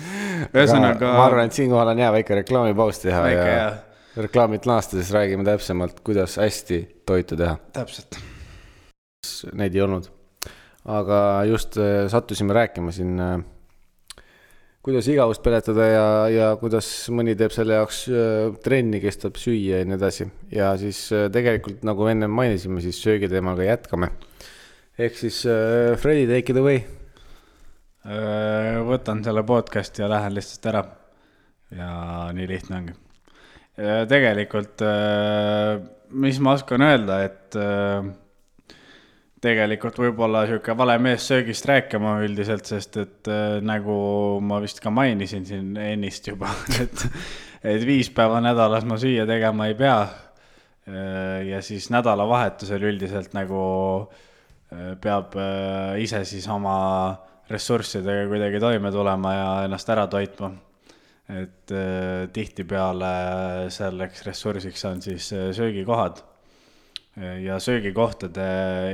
Ühesõnaga... Ma arvan, et siinkohal on väike reklaamipaus teha ja reklaamid naastades räägime täpsemalt, kuidas hästi toitu teha. Täpselt. Neid ei olnud. Aga just sattusime rääkima siin, kuidas igavust peletada ja kuidas mõni teeb selle jaoks trenni, kestab süüa ja nii edasi. Ja siis tegelikult, nagu enne mainisime, siis söögiteemaga jätkame. Ehk siis Freddy, take it away. Võtan selle podcast ja lähen lihtsalt ära. Ja nii lihtne ongi. tegelikult, mis ma oskan öelda, et tegelikult võib-olla sihuke vale mees söögist rääkima üldiselt, sest et nagu ma vist ka mainisin siin ennist juba, et 5 päeva nädalas ma süüa tegema ei pea. Ja siis nädalavahetusel üldiselt nagu peab ise siis oma ressurssidega kuidagi toime tulema ja ennast ära toitma. Et tihtipeale selleks ressursiks on siis söögikohad. Ja söögikohtade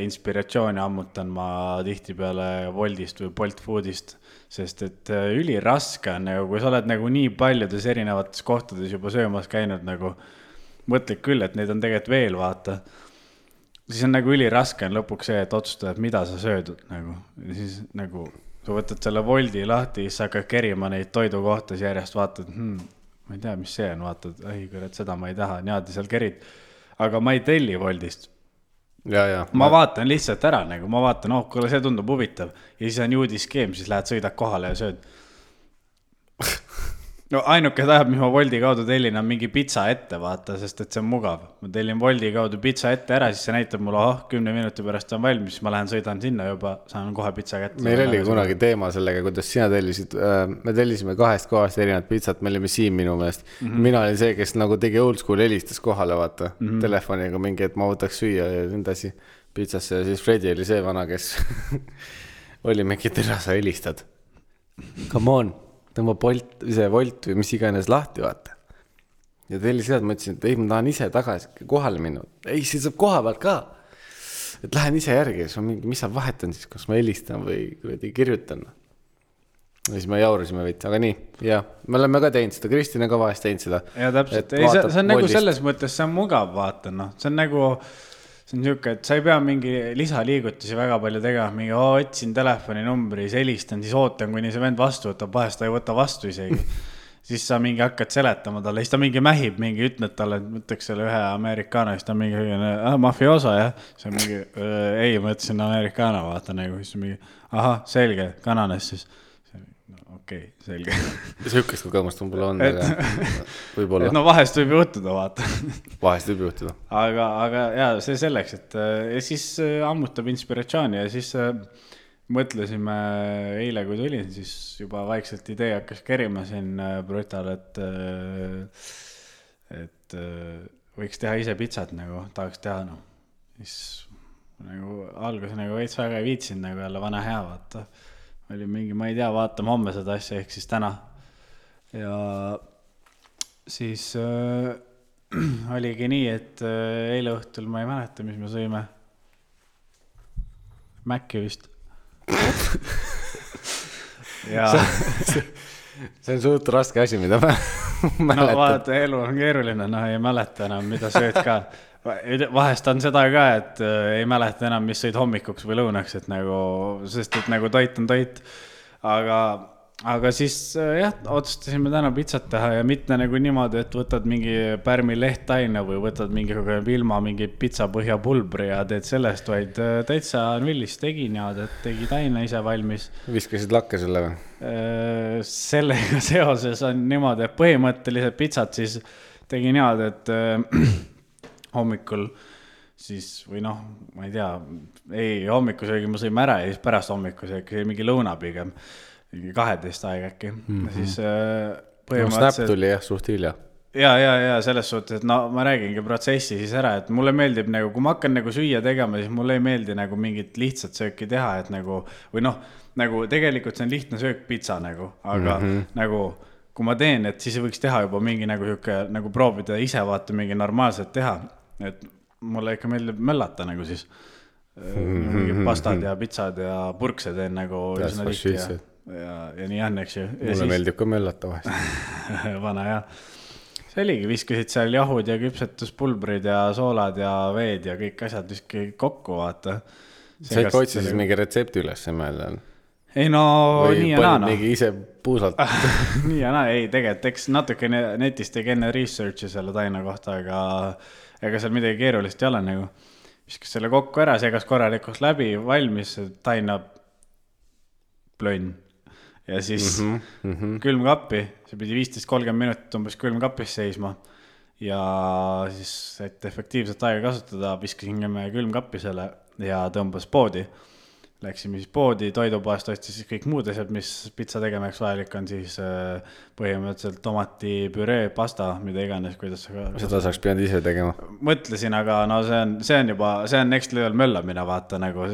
inspiratsiooni ammutan ma tihtipeale Woltist või Bolt Foodist, sest et üliraske on, nagu, kui sa oled nagu nii paljudes erinevates kohtades juba söömas käinud, nagu mõtled küll, et neid on tegelikult veel, vaata. Siis on nagu üliraske on lõpuks see, et otsustada, et mida sa söödud. Nagu. Ja siis nagu sa võtad selle Wolti lahti, siis sa hakkad kerima neid toidukohtas järjest, vaatad, ma ei tea, mis see on, vaatad, kurat, seda ma ei taha, niimoodi seal kerid. Aga ma ei telli Woltist. Ma vaatan lihtsalt ära, nagu ma vaatan, kuule, see tundub huvitav. Ja siis on juudiskeem, siis lähed sõidad kohale ja sööd. No ainuke tahab, mis ma Wolti kaudu tellin, on mingi pitsa ette, vaata, sest et see on mugav. Ma tellin Wolti kaudu pitsa ette ära, siis see näitab mulle, 10 minuti pärast on valmis, siis ma lähen sõidan sinna juba, saan kohe pitsa kätte. Meil oli kunagi teema sellega, kuidas sina tellisid, me tellisime 2 kohast erinevat pitsat, me olime siin minu meelest. Mina olin see, kes nagu tegi old school helistas kohale, vaata, telefoniga mingi, et ma võtaks süüa ja nendasi pitsasse ja siis Fredi oli see vana, kes oli mingi terasa helistad. Come on. Tõmba Bolt või mis iganes lahti, vaata. Ja telli seda, ma ütlesin, et ei, ma tahan ise tagasi kohale minna. Ei, see saab koha pealt ka. Et lähen ise järgi, mis sa vahetan siis, kas ma helistan või kirjutan. Ja siis me jaurusime veits, aga nii, jah, me oleme ka teinud seda, Kristina ka vahest teinud seda. Ja täpselt, ei, see on nagu selles mõttes, see on mugav, vaata, noh, see on nagu... See on niisugune, et sa ei pea mingi lisaliigutusi väga palju tegema, mingi otsin telefoni numbri, siis helistan, siis ootan, kuni see vend vastu võtab, vahest ta ei võta vastu isegi. Siis sa mingi hakkad seletama talle, siis ta mingi mähib, mingi ütled talle, et võtaks selle ühe amerikaano, siis ta mingi mafioso, jah. See on mingi, ei, ma ütlesin amerikaano, vaata nagu, siis mingi, selge, kananes siis. Okei, selge. Sihukest kogemust on pole on, aga võib-olla. No vahest võib juhtuda, vaata. Vahest võib juhtuda. Aga ja, see selleks, et ja siis ammutab inspiratsiooni ja siis mõtlesime eile, kui tulin, siis juba vaikselt idee hakkas kerima siin Brutal, et võiks teha ise pitsat, nagu tahaks teha, no. Siis nagu algus nagu veits väga ei viitsin, nagu jälle vana hea, vaata. Oli mingi, ma ei tea, vaatame homme seda asja, ehk siis täna. Ja siis oligi nii, et eile õhtul ma ei mäleta, mis me sõime. Mäkki vist. Ja... see on suht raske asi, mida ma mäletan. No vaata, elu on keeruline, ei mäleta enam, mida sööd ka. Vahest on seda ka, et ei mäleta enam, mis sõid hommikuks või lõunaks, et nagu, sest et nagu toit on toit. Aga siis jah, otsustasime täna pitsat teha ja mitte nagu niimoodi, et võtad mingi pärmi lehttaina või võtad mingi ilma mingi pitsapõhja pulbri ja teed sellest, vaid täitsa nullis tegin ja tegi taina ise valmis. Viskasid lakke selle või? Sellega seoses on niimoodi, et põhimõtteliselt pitsat siis tegin niimoodi, et hommikul siis, või noh, ma ei tea, hommikusöögi ma sõime ära ja siis pärast hommikusöögi mingi lõuna pigem, mingi 12 aeg äkki. Siis põhimõtteliselt... Snap tuli jah, suht hilja. Ja selles suhtes, et no ma räägingi protsessi siis ära, et mulle meeldib nagu, kui ma hakkan nagu süüa tegema, siis mulle ei meeldi nagu mingit lihtsat sööki teha, et nagu, või noh, nagu tegelikult see on lihtne söök pitsa nagu, aga nagu... Kui ma teen, et siis võiks teha juba mingi nagu proovida ise vaata mingi normaalselt teha, et mulle ikka meeldib möllata nagu siis mingi pastad ja pitsad ja purkse teen nagu üsna tihti ja nii on, eks ju. Mulle meeldib ka möllata vahest. Vana ja see oligi, viskasid seal jahud ja küpsetuspulbrid ja soolad ja veed ja kõik asjad viski kokku, vaata. Sa ikka otsisid mingi retsepti üles mõelda? Ei no, või nii ja naa. Või mingi ise puusalt? Nii ja naa, ei tegelikult, eks natuke netist tegi enne researchi selle taina kohta, aga ega seal midagi keerulist ei ole nagu. Viskas selle kokku ära, segas korralikult läbi, valmis taina plönn. Ja siis külmkappi, see pidi 15-30 minutit umbes külmkapis seisma. ja siis, et efektiivselt aega kasutada, viskasin külmkappi selle ja tõmbas poodi. Läksime siis poodi, toidupoest ostis siis kõik muud asjad, mis pitsa tegemiseks vajalik on, siis põhimõtteliselt tomatipüree, pasta, mida iganes, kuidas seda saaks pidanud ise tegema. Mõtlesin, aga no see on next level möllamine, vaata nagu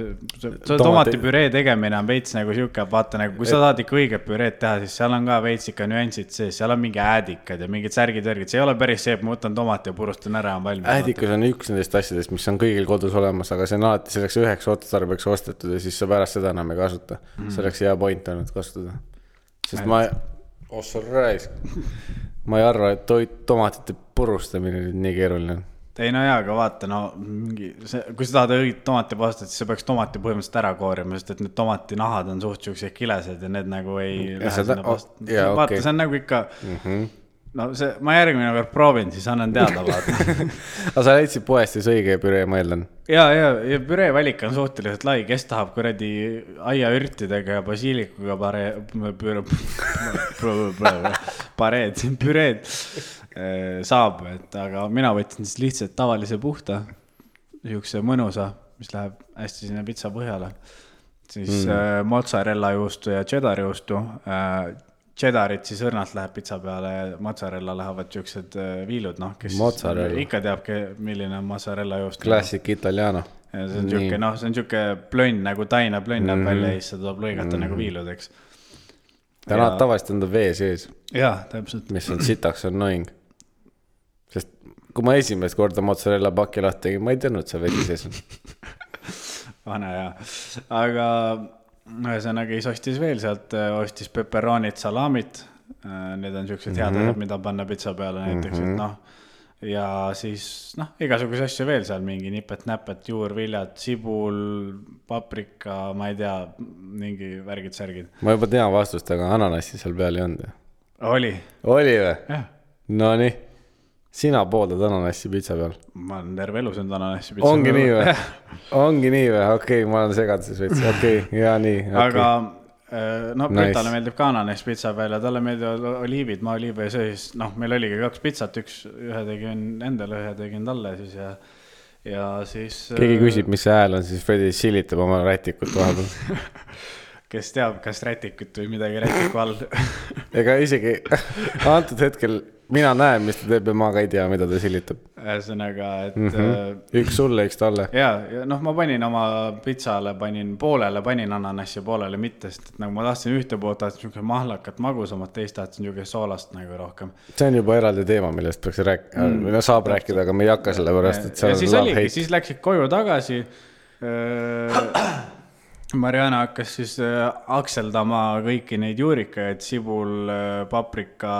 tomatipüree tegemine on veits nagu siuke, vaata nagu kui sa tahad ikka õiget püreed teha, siis seal on ka veits ikka nüansid sees, seal on mingi äädikad ja mingid särgid-värgid, see ei ole päris see, et ma võtan tomati ja purustan ära, on valmis. Äädikas on üks nendest asjadest, mis on kõigil kodus olemas, aga see on alati selleks üheks otstarbeks ostetud ja siis sa pärast seda enam ei kasuta. See oleks hea point ainult kasutada. Sest ma ei arva, et tomatite purustamine on nii keeruline. Ei no jaa, aga vaata, no kui sa tahad õigit tomatipastat, siis sa peaks tomati põhimõtteliselt ära koorima, sest et need tomatinahad on suht siuksed kilesed ja need nagu ei lähe sinna pasta. Vaata, see on nagu ikka... No see, ma järgmine kord proovin, siis annan teada vaata. Aga sa leidsid poest siis õige püree, ma eeldan? Ja püree valik on suhteliselt lai, kes tahab kuradi aiaürtidega ja basiilikuga püreed saab, aga mina võtsin siis lihtsalt tavalise puhta, siukse mõnusa, mis läheb hästi sinna pitsa põhjale. Siis mozzarella juustu ja cheddar juustu. Cheddarit siis õrnalt läheb pitsa peale ja mozzarella lähevad siuksed viilud, noh, kes ikka teab, milline on mozzarella juust. Classic italiano. Ja see on siuke plönn, nagu taina plönn näeb välja ja siis seda tuleb lõigata nagu viilud, eks. Täna tavaliselt on ta vee sees. Jaa, täpselt. Mis on sitaks annoying. Sest kui ma esimest korda mozzarella paki lahti tegin, ma ei teadnud, see vesi sees on. Vana jaa. Aga... Ühesõnaga siis ostis veel sealt, ostis pepperonit, salamit, need on siuksed head asjad, mida panna pitsa peale näiteks, et noh, ja siis noh, igasuguse asju veel seal, mingi nipet-näpet, juurviljad, sibul, paprika, ma ei tea, mingi värgid-särgid. Ma juba tean vastust, aga ananassi seal peal ei olnud. Oli või? Jah. No nii. Sina poodad ananassi pitsa peal? Ma olen terve elu söönud ananassi pitsa peal. Ongi nii või? Okei, ma olen segaduses veits. Okei, ja nii. Aga no Britale meeldib ka ananass pitsa peal ja talle meeldivad oliivid, ma oliive ja söös. Noh, meil oligi 2 pitsat, ühe tegin endale, ühe tegin talle siis ja siis... Keegi küsib, mis see hääl on, siis Fredi silitab oma rätikut vahepeal. Kes teab, kas rätikut või midagi rätiku all. Ega isegi antud hetkel... Mina näen, mis ta teeb ja ma ka ei tea, mida ta silitab. Ühesõnaga, et... Üks sulle, üks talle. Ja noh, ma panin oma pitsale, poolele panin ananassi ja poolele mitte, sest et nagu ma tahtsin ühte poolt, tahtsin niisugune mahlakat magusamat, teist tahtsin niisugune soolast nagu rohkem. See on juba eraldi teema, millest peaks rääkida, saab rääkida, aga me ei hakka selle pärast, et ja siis oligi, siis läksid koju tagasi. Mariana hakkas siis akseldama kõiki neid juurikaid, sibul, paprika,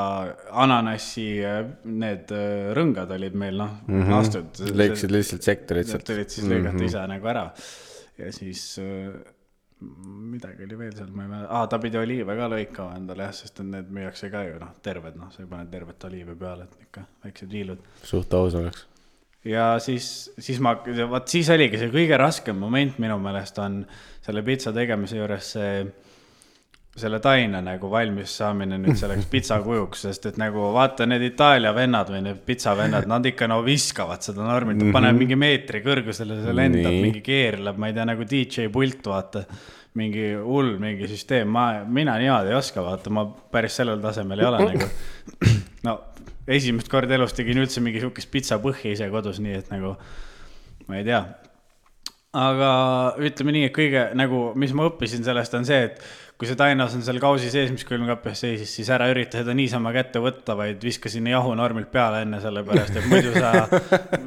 ananassi, need rõngad olid meil, noh, astud. Lõiksid lihtsalt sektorid. Tulid siis lõigata ise nagu ära. Ja siis midagi oli veel seal, ma ei mäleta. Ta pidi oliive ka lõikama endale, sest need müüakse ka ju, noh, terved, noh, sa ei pane tervet oliive peale, et ikka väiksed viilud. Suht aus oleks. Ja siis oligi see kõige raskem moment minu meelest on selle pitsa tegemise juures selle taina nagu valmis saamine nüüd selleks pitsa kujuks, sest et nagu vaata need Itaalia vennad või need pitsa vennad, nad ikka viskavad seda normilt, paneb mingi meetri kõrgusele, see lendab, mingi keerleb, ma ei tea, nagu DJ pult, vaata, mingi hull, mingi süsteem, mina niimoodi ei oska, vaata, ma päris sellel tasemel ei ole nagu, no esimest kord elus tegin üldse mingi siukest pitsa põhja ise kodus, nii et nagu, ma ei tea. Aga ütleme nii, et kõige, nagu, mis ma õppisin sellest on see, et kui see tainas on seal kausi sees, mis külmkapjas seisis, siis ära ürita seda niisama kätte võtta, vaid viska sinna jahu normilt peale enne selle pärast, et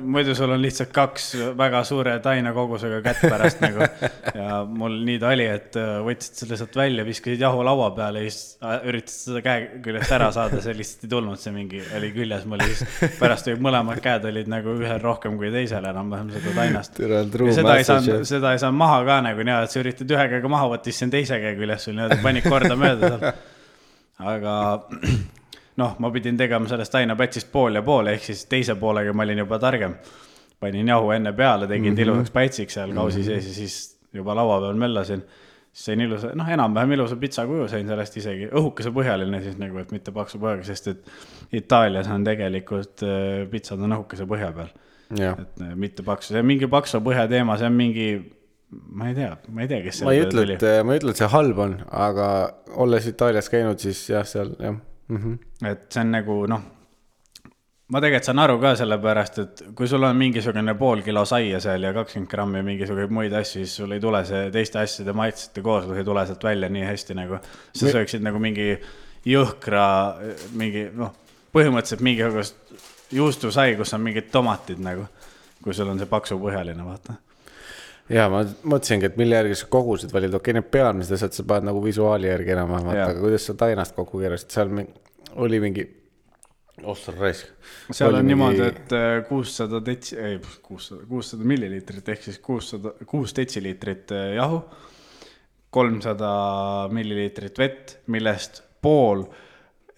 muidu sul on lihtsalt 2 väga suure taina kogusega kätt pärast nagu. Ja mul nii ta oli, et võtsid selle sealt välja, viskasid jahu laua peale ja siis üritasid seda käe küljest ära saada, see lihtsalt ei tulnud, see mingi oli küljes mul ja siis pärast mõlemad käed olid nagu ühel rohkem kui teisel enam-vähem seda tainast. Ja seda ei saa maha ka nagu nii, et sa üritad ühe käega maha võtta, siis see on teise käe küljes sul panik korda mööda seal. Aga noh, ma pidin tegema sellest tainapätsist pool ja pool, ehk siis teise poolega ma olin juba targem. Panin jahu enne peale, tegin tilusaks pätsiks seal kausi sees ja siis juba laua peal möllasin. sain ilusa, noh enam-vähem ilusa pitsa kuju sain sellest isegi, õhukese põhjaline siis nagu, et mitte paksu põhjaga, sest et Itaalias on tegelikult pitsad on õhukese põhja peal. Et mitte paksu, see on mingi paksu põhja teema, see on mingi, ma ei tea, kes ma ei ütle, et see halb on, aga olles Itaalias käinud, siis jah, seal jah. Et see on nagu, noh, ma tegelikult saan aru ka selle pärast, et kui sul on mingisugune pool kilo saia seal ja 20 grammi mingisuguseid muid asju, siis sul ei tule see teiste asjade maitsete kooslus ei tule sealt välja nii hästi nagu. Sa sööksid nagu mingi jõhkra, mingi, noh, põhimõtteliselt mingisugust juustusai, kus on mingid tomatid nagu, kui sul on see paksu põhjaline, vaata. Ja ma mõtlesingi, et mille järgi sa kogusid valid, okei, need pealmised asjad sa paned nagu visuaali järgi enam, aga kuidas sa tainast kokku keerasid, seal oli mingi raisk. Seal on niimoodi, et 600 milliliitrit ehk siis 6 detsiliitrit jahu, 300 milliliitrit vett, millest pool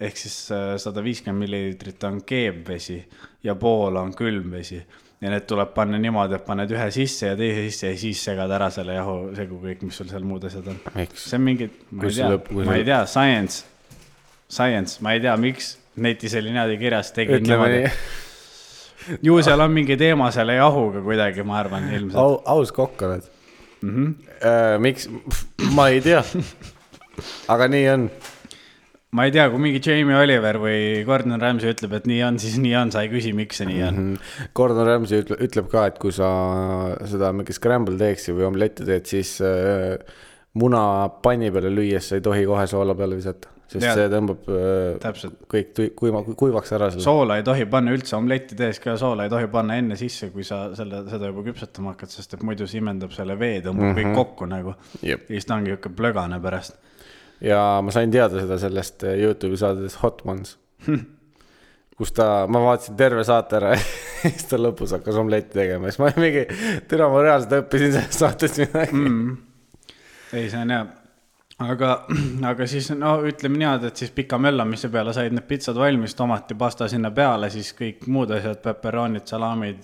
ehk siis 150 milliliitrit on keebvesi ja pool on külmvesi. Ja need tuleb panna niimoodi, et paned ühe sisse ja teise sisse ja siis segad ära selle jahu segu kõik, mis sul seal muud asjad on. See on mingi, ma ei tea, science, ma ei tea, miks netis oli niimoodi kirjas, tegin niimoodi. Ju seal on mingi teema selle jahuga kuidagi, ma arvan, ilmselt. Aus kokk oled. Miks? Ma ei tea. Aga nii on. Ma ei tea, kui mingi Jamie Oliver või Gordon Ramsay ütleb, et nii on, siis nii on, sa ei küsi, miks see nii on. Gordon Ramsay ütleb ka, et kui sa seda mingi scramble teeksid või omletti teed, siis muna panni peale lüües sa ei tohi kohe soola peale visata. Sest see tõmbab kõik kuivaks ära selle. Soola ei tohi panna üldse, omletti tees ka soola ei tohi panna enne sisse, kui sa seda juba küpsetama hakkad, sest et muidu simendab selle vee, tõmbab kõik kokku nagu. Ja siis ta ongi jõuke plögane pärast. Ja ma sain teada seda sellest YouTube'i saades Hot Ones, kus ma vaatasin terve saate ära ja siis ta lõpus hakkas omletti tegema. Siis ma mingi, türa ma reaalselt õppisin sellest saatest midagi. Ei, see on hea. Aga siis, no ütleme niimoodi, et siis pika möllamise peale said need pitsad valmis, tomati, pasta sinna peale, siis kõik muud asjad, pepperonid, salamid,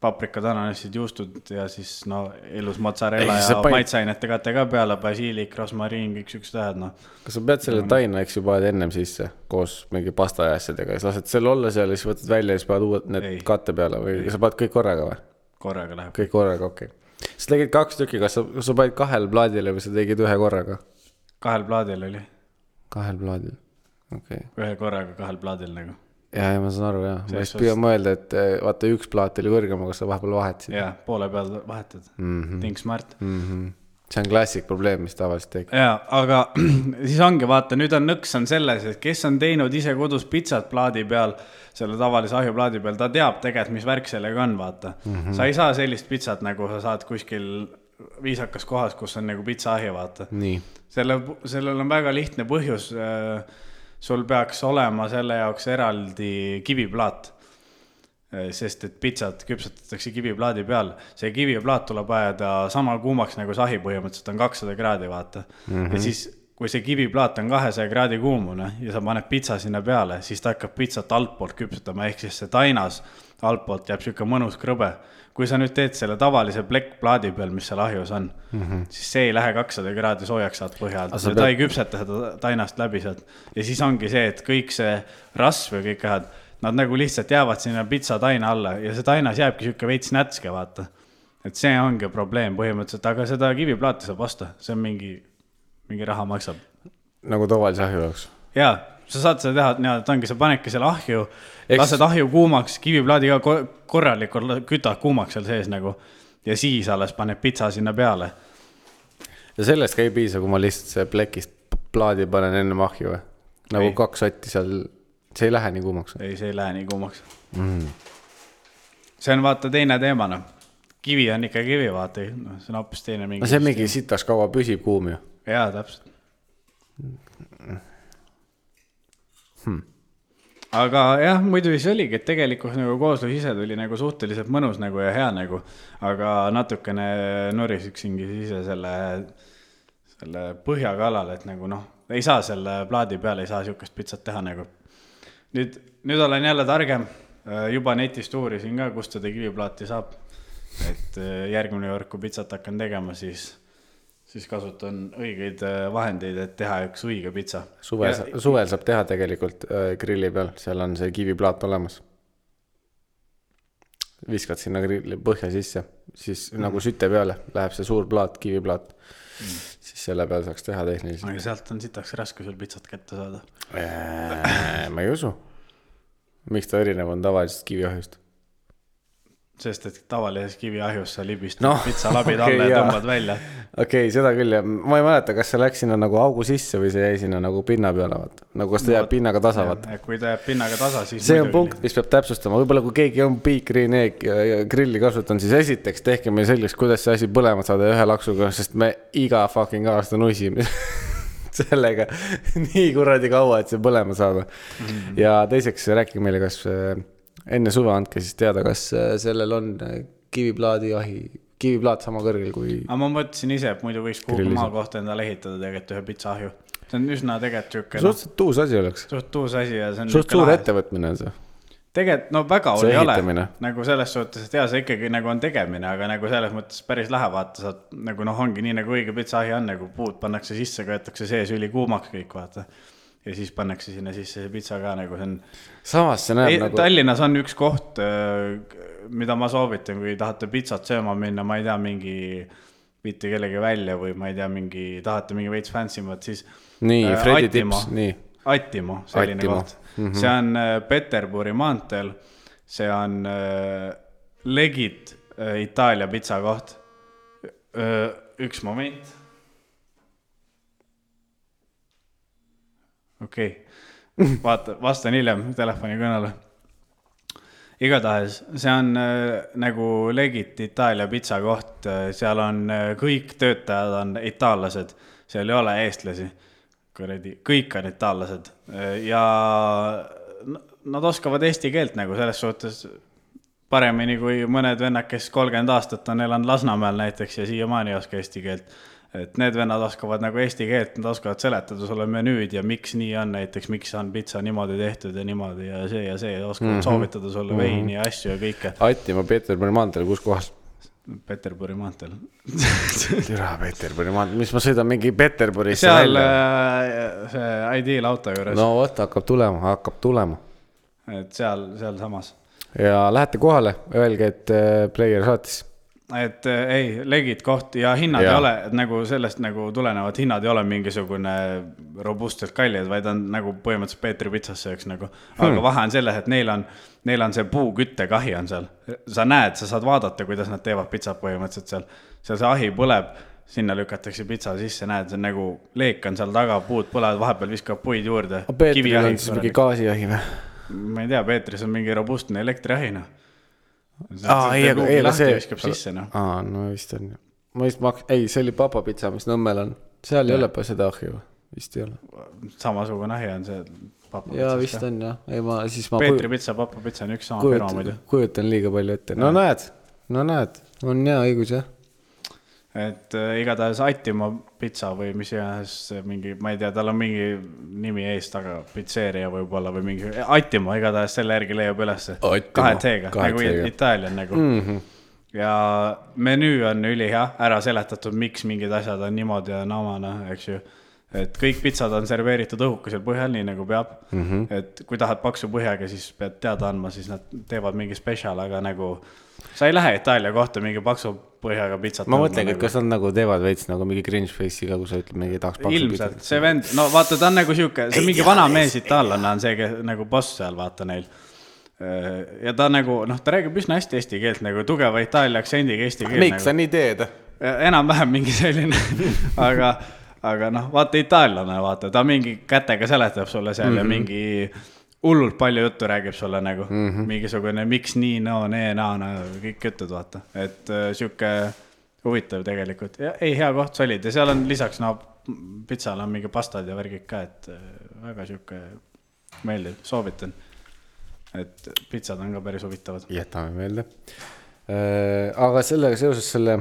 paprikad, ananasid, juustud ja siis no ilus mozzarella ja maitseainete kate ka peale, basiilik, rosmariin, kõik süksed tähed, no. Kas sa pead selle taina, eks juba ennem sisse koos mingi pasta ja asjadega, siis lased selle olla seal ja siis võtad välja ja siis paned uued need katte peale või sa paned kõik korraga või? Korraga läheb. Kõik korraga, okei. Sa tegid 2 tükki, kas sa panid 2 plaadile või sa tegid 1 korraga? 2 plaadil oli. 2 plaadil, okei. 1 korraga 2 plaadil nagu. Ja ma saan aru, jah. Ma just püüan mõelda, et vaata 1 plaat oli kõrgema, kas sa vahepeal vahetasid. Jaa, poole peal vahetad. Think smart. See on klassik probleem, mis tavaliselt teeb. Jaa, aga siis ongi, vaata, nüüd on nõks on selles, et kes on teinud ise kodus pitsat plaadi peal, selle tavalise ahjuplaadi peal, ta teab tegelikult, mis värk sellega on, vaata. Sa ei saa sellist pitsat, nagu sa saad kuskil viisakas kohas, kus on nagu pitsaahju, vaata. Nii. Sellel on väga lihtne põhjus. Sul peaks olema selle jaoks eraldi kiviplaat, sest et pitsat küpsetatakse kiviplaadi peal. See kiviplaat tuleb ajada sama kuumaks nagu sahi põhimõtteliselt on 200 kraadi, vaata. Ja siis kui see kiviplaat on 200 kraadi kuumune ja sa paned pitsa sinna peale, siis ta hakkab pitsat altpoolt küpsetama, ehk siis see tainas altpoolt jääb siuke mõnus krõbe. Kui sa nüüd teed selle tavalise plekkplaadi peal, mis seal ahjus on, siis see ei lähe 200 kraadi soojaks saad põhjalt. Ta ei küpseta seda tainast läbi sealt. Ja siis ongi see, et kõik see rasv ja kõik ahad, nad nagu lihtsalt jäävad sinna pitsa taina alla ja see tainas jääbki siuke veits nätske, vaata. Et see ongi probleem põhimõtteliselt, aga seda kiviplaati saab osta, see on mingi raha maksab. Nagu tavalise ahju jaoks. Jaa, sa saad seda teha, et ongi, sa panedki selle ahju, lased ahju kuumaks, kiviplaadiga korralikult kütad kuumaks seal sees nagu ja siis alles paned pitsa sinna peale. Ja sellest ka ei piisa, kui ma lihtsalt see plekist plaadi panen enne ahju või? Nagu 2 sotti seal, see ei lähe nii kuumaks? Ei, see ei lähe nii kuumaks. See on vaata teine teema, no. Kivi on ikka kivi, vaata, no, see on hoopis teine mingi. No see mingi sitaks kaua püsib kuum ju. Jaa, täpselt. Aga jah, muidu siis oligi, et tegelikult nagu kooslus ise tuli nagu suhteliselt mõnus nagu ja hea nagu, aga natukene norisiksingi ise selle põhjakalal, et nagu noh, ei saa selle plaadi peale, ei saa siukest pitsat teha nagu. Nüüd olen jälle targem, juba netist uurisin ka, kust seda kiviplaati saab, et järgmine kord, kui pitsat hakkan tegema, siis siis kasutan õigeid vahendeid, et teha üks õige pitsa. Suvel saab teha tegelikult grilli peal, seal on see kiviplaat olemas. Viskad sinna grilli põhja sisse, siis nagu süte peale läheb see suur plaat, kiviplaat. Siis selle peal saaks teha tehniliselt. Aga sealt on sitaks raske sul pitsat kätte saada. Ma ei usu. Miks ta erinev on tavalisest kiviahjust? Sest, et tavalises kiviahjus sa libistad pitsalabid alla ja tõmbad välja. Okei, seda küll. Ja ma ei mäleta, kas see läks sinna nagu augu sisse või see jäi sinna nagu pinna peale. Nagu kas ta jääb pinnaga tasa. Kui ta jääb pinnaga tasa, siis... See on punkt, mis peab täpsustama. Võib-olla kui keegi on grilli kasutan, siis esiteks tehke meil selgeks, kuidas see asi põlema saada ühe laksuga, sest me iga fucking aasta nusime sellega nii kuradi kaua, et see põlema saada. Ja teiseks rääkige meile, kas... Enne suve andke siis teada, kas sellel on kiviplaat sama kõrgel kui... Aga ma mõtlesin ise, et muidu võiks kuhugi maa kohta endale ehitada tegelikult ühe pitsaahju. See on üsna tegelikult tšükke. Suhteliselt tuus asi oleks. Tuus asi ja see on... Suht suur ettevõtmine on see. Tegelikult, väga oli ole. Nagu selles suhtes, et see ikkagi nagu on tegemine, aga nagu selles mõttes päris lähe vaata. Saad, nagu ongi nii nagu õige pitsaahju on, nagu puud pannakse sisse, köetakse sees üli kuumaks kõik vaata. Ja siis pannakse sinna sisse see pitsa ka nagu see on... Samas see näeb nagu... Tallinnas on üks koht, mida ma soovitan, kui tahate pitsat sööma minna, ma ei tea, mingi viite kellegi välja või ma ei tea, tahate mingi veits fansimad, siis... Nii, Fredi tips, nii. Attimo, selline koht. See on Peterburi maanteel, see on legit Itaalia pitsa koht. Üks moment. Okei, vaata, vastan hiljem telefoni kõnele. Igatahes, see on nagu legit Itaalia pitsa koht, seal on kõik töötajad on itaallased, seal ei ole eestlasi, kõik on itaallased ja nad oskavad eesti keelt nagu selles suhtes paremini kui mõned vennad, kes 30 aastat on elanud Lasnamäel näiteks ja siiamaani ei oska eesti keelt. Et need vennad oskavad nagu eesti keelt, nad oskavad seletada sulle menüüd ja miks nii on näiteks, miks on pitsa niimoodi tehtud ja niimoodi ja see oskavad soovitada sulle veini ja asju ja kõike. Attimo Peterburi maanteel, kus kohas? Peterburi maanteel. Türa Peterburi maanteel, mis ma sõidan mingi Peterburisse seal see ideal auto juures. No võtta, hakkab tulema. Et seal samas. Ja lähete kohale, öelge, et player saatis. Et ei, legit koht ja hinnad ei ole, et nagu sellest nagu tulenevad hinnad ei ole mingisugune robustselt kallid, vaid on nagu põhimõtteliselt Peetri pitsasse üks nagu. Aga vahe on selles, et neil on see puuküttekahi on seal. Sa näed, sa saad vaadata, kuidas nad teevad pitsat põhimõtteliselt seal. Seal see ahi põleb, sinna lükatakse pitsa sisse, näed, see nagu leek on seal taga, puud põlevad, vahepeal viskab puid juurde. Peetril on siis mingi gaasiahi või? Ma ei tea, Peetris on mingi robustne elektriahina. No vist on. Ei, see oli papapitsa, mis Nõmmel on. Seal ei ole pa seda ahju, vist ei ole. Samasugune ahi on see papapitsa. Jaa, vist on, jah. Peetri pitsa, papapitsa on üks sama firma muidu. Kujutan liiga palju ette. No näed, on hea õigus, jah. Et igatahes Attimo pitsa või mis iganes mingi, ma ei tea, tal on mingi nimi ees taga, pitseeria võib-olla või mingi Attimo, igatahes selle järgi leiab ülesse. 2T-ga, nagu Itaalian nagu. Ja menüü on ülihea, ära seletatud, miks mingid asjad on niimoodi ja naamana, eks ju. Et kõik pitsad on serveeritud õhukesel põhjal, nii nagu peab. Et kui tahad paksu põhjaga, siis pead teada andma, siis nad teevad mingi special, aga nagu sa ei lähe Itaalia kohta mingi paksu põhjaga pitsat. Ma mõtlengi, et kas on nagu teevad veits nagu mingi cringe face'iga, kui sa ütled mingi tahaks paksu pitsat. Ilmselt, see vend, no vaata, ta on nagu siuke, see mingi vana mees itaallane on see nagu boss seal, vaata neil. Ja ta nagu, ta räägib üsna hästi eesti keelt, nagu tugeva Itaalia aktsendiga eesti keelt. Miks sa nii teed? Enam-vähem mingi selline, aga vaata itaallane, vaata, ta mingi kätega seletab sulle seal ja mingi hullult palju juttu räägib sulle nagu, mingisugune miks nii, kõik jutud, vaata. Et siuke huvitav tegelikult. Ja, ei, hea koht, solid. Ja seal on lisaks, pitsal on mingi pastad ja värgid ka, et väga siuke meeldiv, soovitan. Et pitsad on ka päris huvitavad. Jätame meelde. Aga sellega seoses selle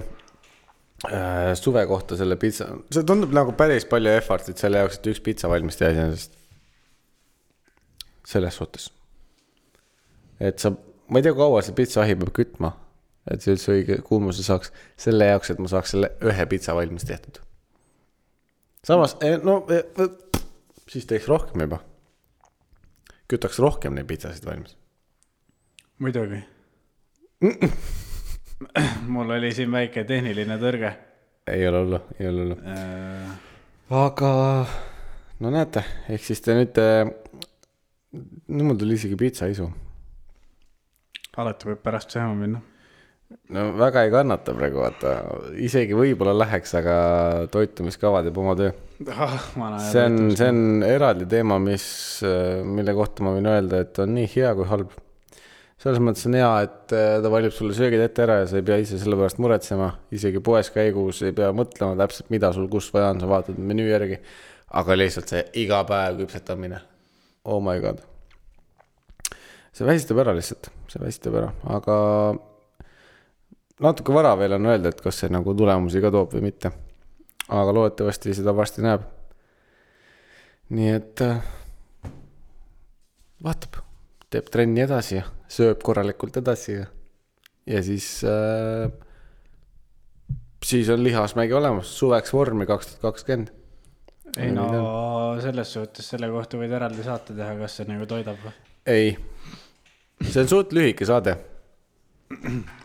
suve kohta selle pitsa, see tundub nagu päris palju effortit selle jaoks, et üks pitsa valmis teha iseenesest. Selles suhtes. Et ma ei tea, kaua see pitsa-ahi peab kütma, et see üldse õige kuumuse saaks selle jaoks, et ma saaks selle ühe pitsa valmis tehtud. samas, siis teeks rohkem juba. Kütaks rohkem neid pitsasid valmis. Muidugi. Mul oli siin väike tehniline tõrge. Ei ole hullu. Aga, no näete, ehk siis te nüüd, mul tuli isegi pitsa isu. Alati võib pärast sööma minna. No väga ei kannata praegu, vaata. Isegi võib-olla läheks, aga toitumiskavad jääb oma töö. See on eraldi teema, mille kohta ma võin öelda, et on nii hea kui halb. Selles mõttes on hea, et ta valib sulle söögid ette ära ja sa ei pea ise selle pärast muretsema. Isegi poes käigus ei pea mõtlema täpselt, mida sul kus vaja on, sa vaatad menüü järgi. Aga lihtsalt see iga päev küpsetamine. Oh my god. See väsitab ära lihtsalt, aga natuke vara veel on öelda, et kas see nagu tulemusi ka toob või mitte. Aga loodetavasti seda varsti näeb. Nii et vaatab, teeb trenni edasi ja sööb korralikult edasi ja siis on lihasmägi olemas, suveks vormi 2020. Ei no selles suhtes selle kohta võid eraldi saate teha, kas see nagu toidab või? Ei, see on suht lühike saade.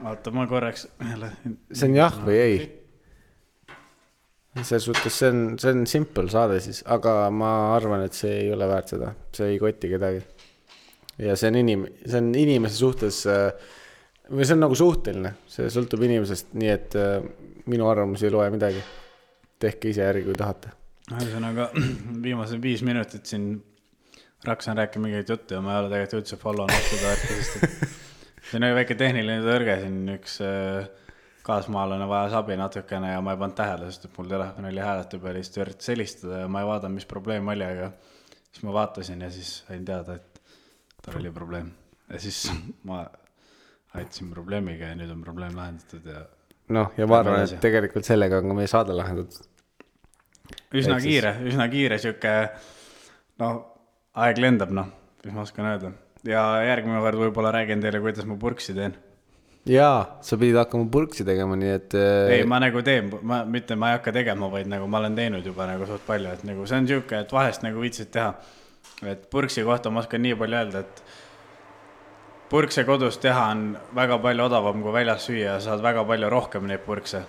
Oota, ma korraks see on jah või ei? Selles suhtes see on simple saade siis, aga ma arvan, et see ei ole väärt seda, see ei koti kedagi. Ja see on inimese suhtes, või see on nagu suhteline, see sõltub inimesest, nii et minu arvamus ei loe midagi. Tehke ise järgi, kui tahate. Ühesõnaga, viimased 5 minutit siin raksan rääkima mingeid juttu ja ma ei ole tegelikult üldse follownud seda värki, sest see on väike tehniline tõrge siin, üks kaasmaalane vajas abi natukene ja ma ei pannud tähele, sest mul telefon oli hääletu peal ja siis üritas helistada ja ma ei vaadanud, mis probleem oli, aga siis ma vaatasin ja siis sain teada, et tal oli probleem. Ja siis ma aitasin probleemiga ja nüüd on probleem lahendatud. Ja ma arvan, et tegelikult sellega on ka meie saade lahendatud. Üsna kiire siuke, aeg lendab, mis ma oskan öelda. Ja järgmine kord võib-olla räägin teile, kuidas ma purksi teen. Jaa, sa pidid hakkama purksi tegema, nii et... Ei, ma nagu teen, mitte ma ei hakka tegema, vaid nagu ma olen teinud juba nagu suht palju, et nagu see on siuke, et vahest nagu viitsid teha. Et purksi kohta ma oskan nii palju öelda, et purkse kodus teha on väga palju odavam kui väljas süüa ja saad väga palju rohkem neid purkse.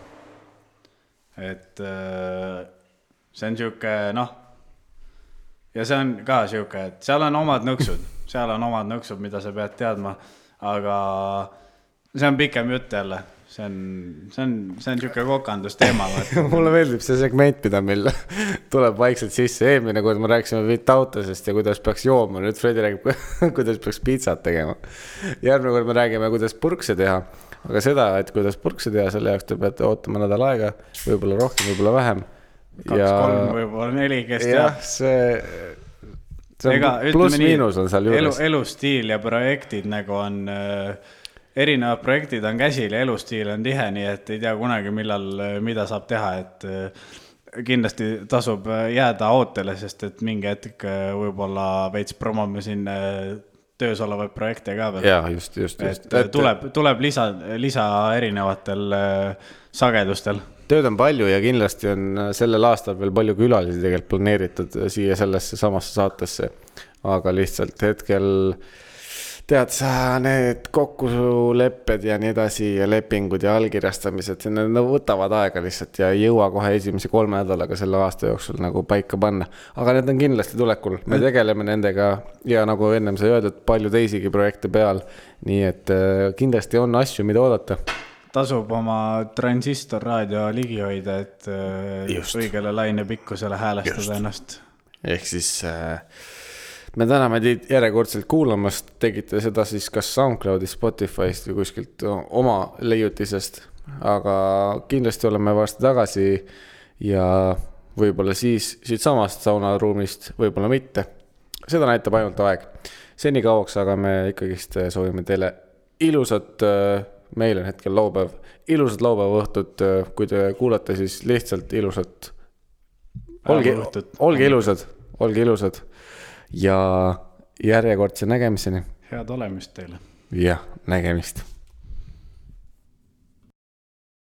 Et see on siuke, ja see on ka siuke, et seal on omad nõksud, mida sa pead teadma, aga see on pikem jutt jälle. See on siuke kokandusteema. Mulle meeldib see segment, mida meil tuleb vaikselt sisse. Eelmine kord me rääksime vitautasest ja kuidas peaks jooma. Nüüd Fredi räägib, kuidas peaks pizzat tegema. Järgmine kord me räägime, kuidas purkse teha. Aga seda, et kuidas purkse teha, selle jaoks te peate ootama nädal aega. Võib-olla rohkem, võib-olla vähem. 2-3, võib-olla 4, kes teab. Jah, see on pluss miinus on seal juures. Elustiil ja projektid nagu on... Erinevad projektid on käsil ja elustiil on tihe, nii et ei tea kunagi mida saab teha, et kindlasti tasub jääda ootele, sest et mingi hetk võib-olla veits promome siin töös olevaid projekte ka veel. Jaa, just. Tuleb lisa erinevatel sagedustel. Tööd on palju ja kindlasti on sellel aastal veel palju külalisi tegelikult planeeritud siia sellesse samasse saatesse, aga lihtsalt hetkel... Tead sa, need kokkulepped ja nii edasi ja lepingud ja allkirjastamised, need võtavad aega lihtsalt ja ei jõua kohe esimese 3 nädalaga selle aasta jooksul nagu paika panna. Aga need on kindlasti tulekul. Me tegeleme nendega ja nagu ennem sai öeldud, palju teisigi projekte peal. Nii et kindlasti on asju, mida oodata. Tasub oma transistorraadio ligi hoida, et õigele laine pikkusele häälestada ennast. Ehk siis... Me täname teid järjekordselt kuulamast, tegite seda siis kas SoundCloudist, Spotify'st või kuskilt oma leiutisest, aga kindlasti oleme varsti tagasi ja võib-olla siis siit samast saunaruumist, võib-olla mitte. Seda näitab ainult aeg. Seni kauaks, aga me ikkagist soovime teile ilusat, meil on hetkel laupäev, ilusat laupäeva õhtut, kui te kuulate siis lihtsalt ilusat. Olge ilusad. Ja järjekordse nägemiseni. Head olemist teile. Ja, nägemist.